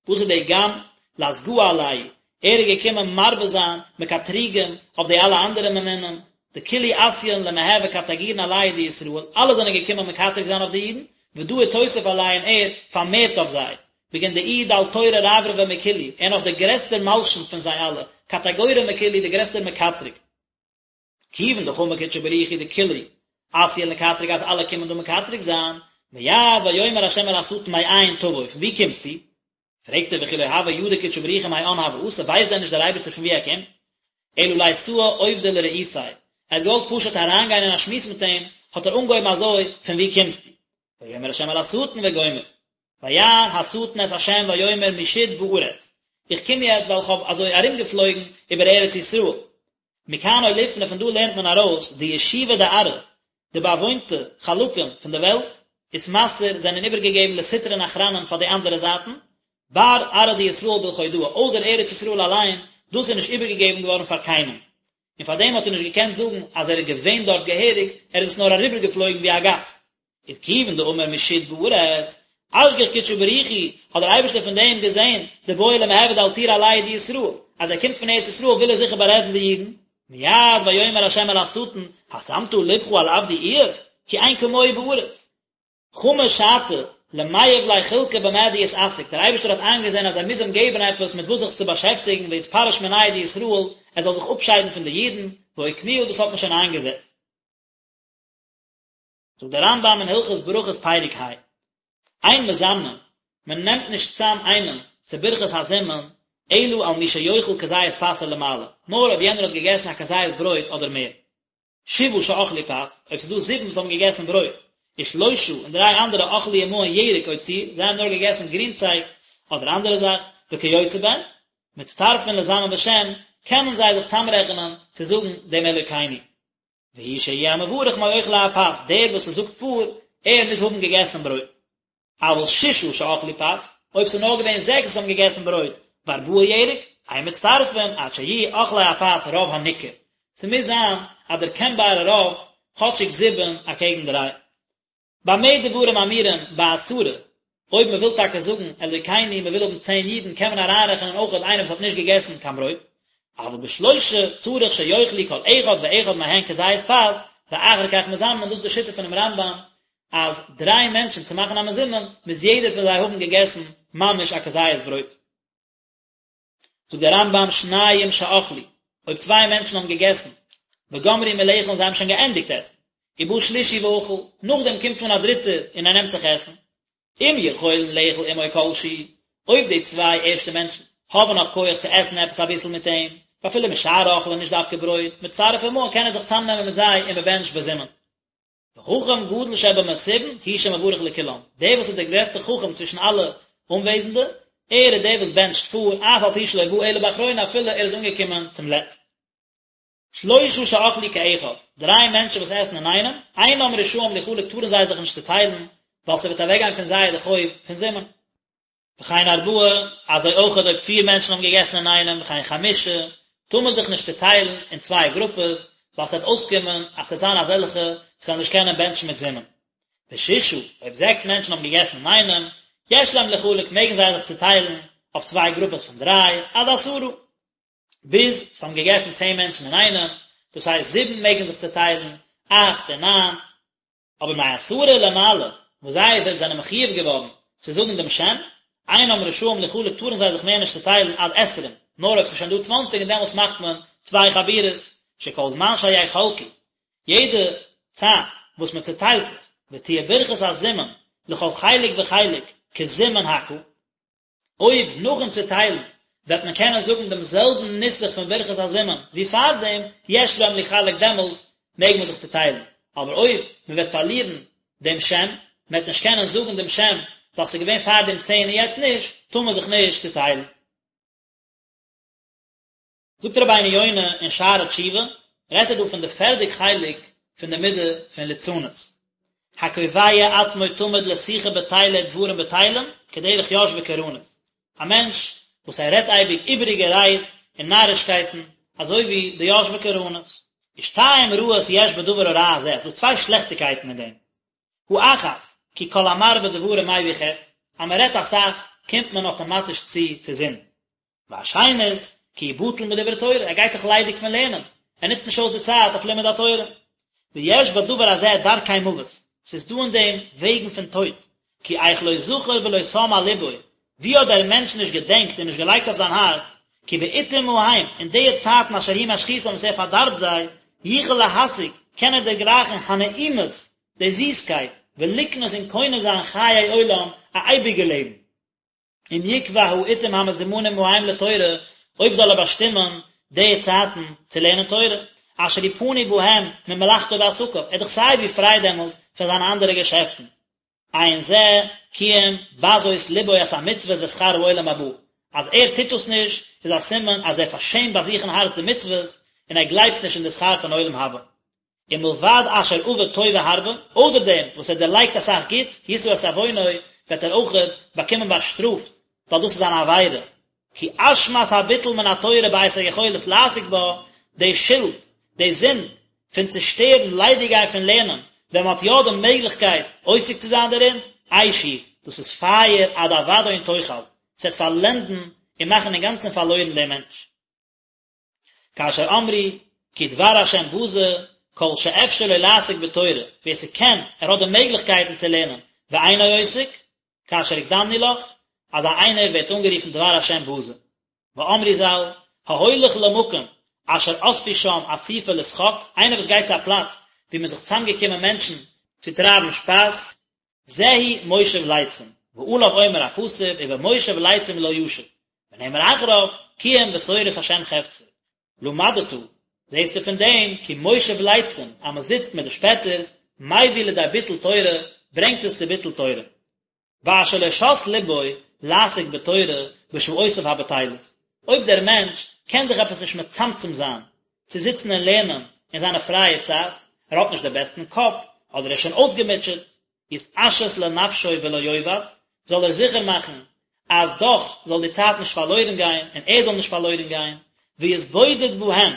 Speaker 1: וואס איז די גם? לאסגאה עלייהו, ער איז געקומען מרבה זיין מקטריגים אויף די אלע אנדערע ממונים, דכולהו אתיין למהוי קטיגורין עלייהו דישראל, אלע זענען געקומען מקטרג זיין אויף די אידן, ודא אתוסף עלייהו און ער פארמערט אויף זיי, בגין דאיהו דל תורא רברבא מכולהו, ער נאך דער גרעסטער מלשין פון זיי אלע, קטיגורא מכולהו דער גרעסטער מקטרג. כיוון דחמא קודשא בריך הוא דכולהו אתיין לקטרג אז אלע קומען דא מקטרג זיין, מיד ויאמר ה' אל השטן מאין תבוא, פון וואו קומסטו? פרעגט ער וכי לא הוה ידע קודשא בריך הוא מאן הוה אתי, ווייסט דען נישט דער אייבערשטער פון וואו ער קומט? אלא לאתאי עובדא לרעותיה, ער האט געוואלט פשוט אריינגיין אין א שמועס מיט אים, האט ער אנגעהויבן אזוי, פון וואו קומסטו? ויאמר ה' אל השטן וגומר. ויען השטן את ה' ויאמר משוט בארץ, איך קום יעצט ווייל איך האב אזוי ארומגעפלויגן איבער ארץ ישראל, מכאן אוליפנא פון דא לערנט מען ארויס דישובא דארעא, די באוואוינטע חלקים פון די וועלט, אתמסר זענען איבערגעגעבן לסטרין אחרנין פאר די אנדערע זייטן, בר ארעא דישראל בלחודהא, אויסער ארץ ישראל אליין, דאס איז נישט איבערגעגעבן געווארן פאר קיינעם. און פאר דעם האט ער נישט געקענט זאגן אז ער איז געווען דארט געהעריג, ער איז עס נאר אריבערגעפלויגן ווי א גאסט. איז כיוון דאמר משוט בארץ, אשגח קודשא בריך הוא, האט דער אייבערשטער פון דעם געזען, דבעי למעבד אלטורא עלייהו דישראל, אז ער קומט פון ארץ ישראל וויל ער זיכער בארעדן די אידן, מיד ויאמר ה' אל השטן, השמת לבך על עבדי איוב, כי אין כמוהו בארץ. חמא שעתא, למיהב ליה חולקא במה דיתעסק, דער אייבערשטער האט איינגעזען אז ער מוז אים געבן עפעס מיט וואס זיך צו באשעפטיגן ויתפרש מינייהו דישראל, ער זאל זיך אפשיידן פון די אידן, ואוקמוה דאס האט מען שוין איינגעזעצט. זאגט דער רמב"ם אין הלכות ברכות פרק ה, אין מזמנין, מען נעמט נישט צאם איינעם צו ברכת הזימון, אלא על מי שיאכל כזית פת ולמעלה, נאר אויב יענער האט געגעסן א כזית ברויט אדער מער. שבעה שאכלו פת, אויב ס'איז דא זיבן וואס האבן געגעסן ברויט, ושלושה און דריי אנדערע אכלו עמהן ירק או ציר, זיי האבן נאר געגעסן גרינצייג אדער אנדערע זאך, וכיוצא בהן, מצטרפין לזמן בשם, קענען זיי זיך צאמרעכענען צו זאגן דעם אלוקינו. והוא שיהא המברך מאוכלי הפת, דער וואס עס זאגט פאר, ער מוז האבן געגעסן ברויט. אבל ששה שאכלו פת, אויב ס'איז נאר געווען זעקס וואס האבן געגעסן ברויט, וארבעה ירק, אין מצטרפין עד שיהיו אוכלי הפת רוב הניכר. ס'מוז זיין א דערקענבארע רוב, כאטשיג זיבן אקעגן דריי. במה דברים אמורים בעשרה, אויב מען וויל טאקע זאגן אלוקינו מען וויל האבן צען אידן קען מען אריינרעכענען אויך איינער וואס האט נישט געגעסן קיין ברויט, אבל בשלושה צריך שיאכלו כל אחד ואחד מהן כזית פת, ואחר כך מזמנין, דאס איז די שיטה פונעם רמב"ם אז דריי מענטשן צו מאכן א מזומן מוז יעדער פון זיי האבן געגעסן ממש א כזית ברויט. זאגט דער רמב"ם שניים שאכלו, אויב צוויי מענטשן האבן געגעסן, וגמרו מלאכול און זיי האבן שוין געענדיגט עסן, ובא שלישי ואכל, נאכדעם קומט אן א דריטער און ער נעמט זיך עסן, אם יכולין לאכול עמו כל שהוא, אויב די צוויי ערשטע מענטשן האבן נאך כח צו עסן עפעס אביסל מיט אים, ואפילו משאר אוכלין נישט דווקא ברויט, מצטרף עמהן קען ער זיך צאמנעמען מיט זיי און מען בענטשט בזימון. וחכם גדול שבמסובין הוא שמברך לכולם, דער וואס איז דער גרעסטער חכם צווישן אלע אנוועזנדע, ער איז דער וואס בענטשט פאר, אף על פי שלא בא אלא באחרונה אפילו ער איז אנגעקומען צום לעצט. שלושה שאכלו כאחד, דריי מענטשן וואס עסן אינאיינעם, אינם רשאים ליחלק טארן זיי זיך נישט צוטיילן, ווייל ס'וועט אוועקגיין פון זיי די חוב פון זימון. וכן ארבעה, אזוי אויך אויב פיר מענטשן האבן געגעסן אינאיינעם, וכן חמשה, טאר מען זיך נישט צוטיילן אין צוויי גרופעס, ווייל ס'וועט אויסקומען אז ס'וועט זיין אזעלכע וואס וועלן נישט קענען בענטשן מיט זימון. ושישה, אויב זעקס מענטשן האבן געגעסן אינאיינעם, יש להם ליחלק, מעגן זיי זיך צוטיילן אויף צוויי גרופעס פון דריי, עד עשרה. ביז ס'האבן געגעסן צען מענטשן אינאיינעם, דאס הייסט זיבן מעגן זיך צוטיילן, אכט און ניין. אבער מעשרה ולמעלה, וואס זיי זענען מחויב געווארן צו זאגן דעם שם, אינם רשאים ליחלק טארן זיי זיך מער נישט צוטיילן עד עשרים, נאר אויב ס'איז שוין דא צוואנציג און דעמאלטס מאכט מען צוויי חבורות, שכל זמן שיחלקו, יעדע צייט וואס מען צוטיילט זיך, ותהיה ברכת הזימון לכל חלק וחלק כזימון הקהל, אויב נאכן צוטיילן וועט מען קענען זאגן דעם זעלבן נוסח פון ברכת הזימון ווי פארדעם, יש להם ליחלק דעמאלטס מעג מען זיך צוטיילן, אבער אויב מען וועט פארלירן דעם שם, מען וועט נישט קענען זאגן דעם שם ווייל ס'איז געווען פארדעם צען און יעצט נישט, טאר מען זיך נישט צוטיילן. זאגט רבינו יונה אין שערי תשובה, רעדט ער דא פון די פערדע חלק פון די מידה פון ליצנות. הקובע עצמו תמיד לשיחה בטלה ודברים בטלים, כדרך יושבי קרנות, א מענטש וואס ער רעדט אייביג איבעריגע רייד און נארישקייטן, אזוי ווי די יושבי קרנות. ושתיים רעות יש בדבר הרע הזה, ס'דא צוויי שלעכטיקייטן אין דעם. האחת, כי כל המרבה דברים מביא חטא, אז מען רעדט אסאך קומט מען אטאמאטיש צו צו זינד. והשנית, כי הוא בטל מדברי תורה, ער גייט דאך ליידיג פון לערנען, ער נוצט נישט אויס די צייט אויף לימוד התורה. ויש בדבר הזה דרכי מוות, ס'איז דא אין דעם וועגן פון טויט, כי איך לא זכר ולא שם על לבו, ווי האט דער מענטש נישט געדענקט און נישט געלייגט אויף זיין הארץ, כי בעתים ההם, אין די צייטן אשר הוא משחיתם וואס ער פארדארבט זיי, יוכל להשיג, קען ער דערגרייכן הנעימות, די זיסקייט, ולקנות און קונה זיין חיי עולם, א אייביגע לעבן. אם יקבע העתים המזומנים ההם לתורה, אויב זאל ער באשטימען די צייטן צו לערנען תורה, אשר הוא פנוי בהם ממלאכתו ועסקיו, ער איז דאך סיי ווי פריי דעמאלט פון זיינע אנדערע געשעפטן. אין זה כי אם בזות לבו את המצוות ושכר העולם הבא, אז ער טוט דאס נישט איז א סימן אז ער פארשעמט ביי זיך אין הארץ די מצוות, און ער גלייבט נישט אין די שכר פון עולם הבא. ומלבד אשר אבד טובה הרבה, אויסער דעם וואס ער דערלייגט אסאך גוטס, ישא את עוונו, וועט ער אויכעט באקומען באשטראפט, ווייל דאס איז אן עבירה. כי אשמת הביטול מן התורה בעת היכולת לעסוק בה, די שולד, די זינד, פון צושטערן, ליידיגגיין פון לערנען, ווען מען האט יא די מעגליכקייט עוסק צו זיין דערין, אש היא, דאס איז פייער עד אבדון תאכל, ס'וועט פארלענדן און מאכן אינגאנצן פארלוירן דעם מענטש. כאשר אמרו כי דבר השם בזה, כל שאפשר לו לעסוק בתורה, ווער ס'קען, ער האט די מעגליכקייטן צו לערנען, ואינו עוסק, כאשר הקדמנו לך, אזא איינער ווערט אנגערופן דבר השם בזה. ואמרו ז"ל, ההולך למקום אשר אספו שם אסיפה לשחוק, איינער וואס גייט צו א פלאץ וואו מ'איז זיך צוזאמגעקומען מענטשן צו טרייבן שפאס, זהו מושב לצים, ועליו אומר הכתוב ובמושב לצים לא ישב, ונאמר אחריו, כי אם בתורת השם חפצו. למדת, זעסטו פון דעם, כי מושב לצים, אז מען זיצט מיט די שפעטערס, מביא לידי ביטול תורה, ברענגט עס צו ביטול תורה. ואשר לא שת לבו לעסוק בתורה בשעותיו הבטלות, אויב דער מענטש קען זיך עפעס נישט מצמצם זיין צו זיצן און לערנען אין זיינע פרייע צייט, ער האט נישט די בעסטן קאפ, אדער ער איז שוין אויסגעמוטשעט, יתעשת לנפשו ולא יאבד, זאל ער זיכער מאכן אז דאך זאל די צייט נישט פארלוירן גיין און ער זאל נישט פארלוירן גיין, ויתבודד בהם,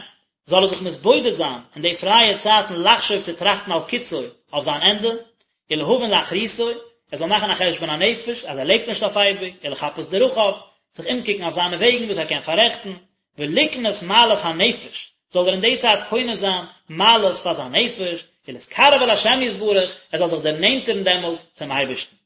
Speaker 1: זאל ער זיך מתבודד זיין אין די פרייע צייטן לחשוב צו טראכטן על קצו, אויף זיין ענדע, ולהבין לאחריתו, ער זאל מאכן א חשבון הנפש אז ער לעבט נישט אויף אייביג, ולחפש דרכיו, זיך אומקוקן אויף זיינע וועגן וואס ער קען פאררעכטן, ולקנות מעלות הנפש, זאל ער אין די צייט קונה זיין מעלות פאר זיין נפש, ולהתקרב אל השם יתברך, ער זאל זיך דערנענטערן דעמאלט צום אייבערשטן.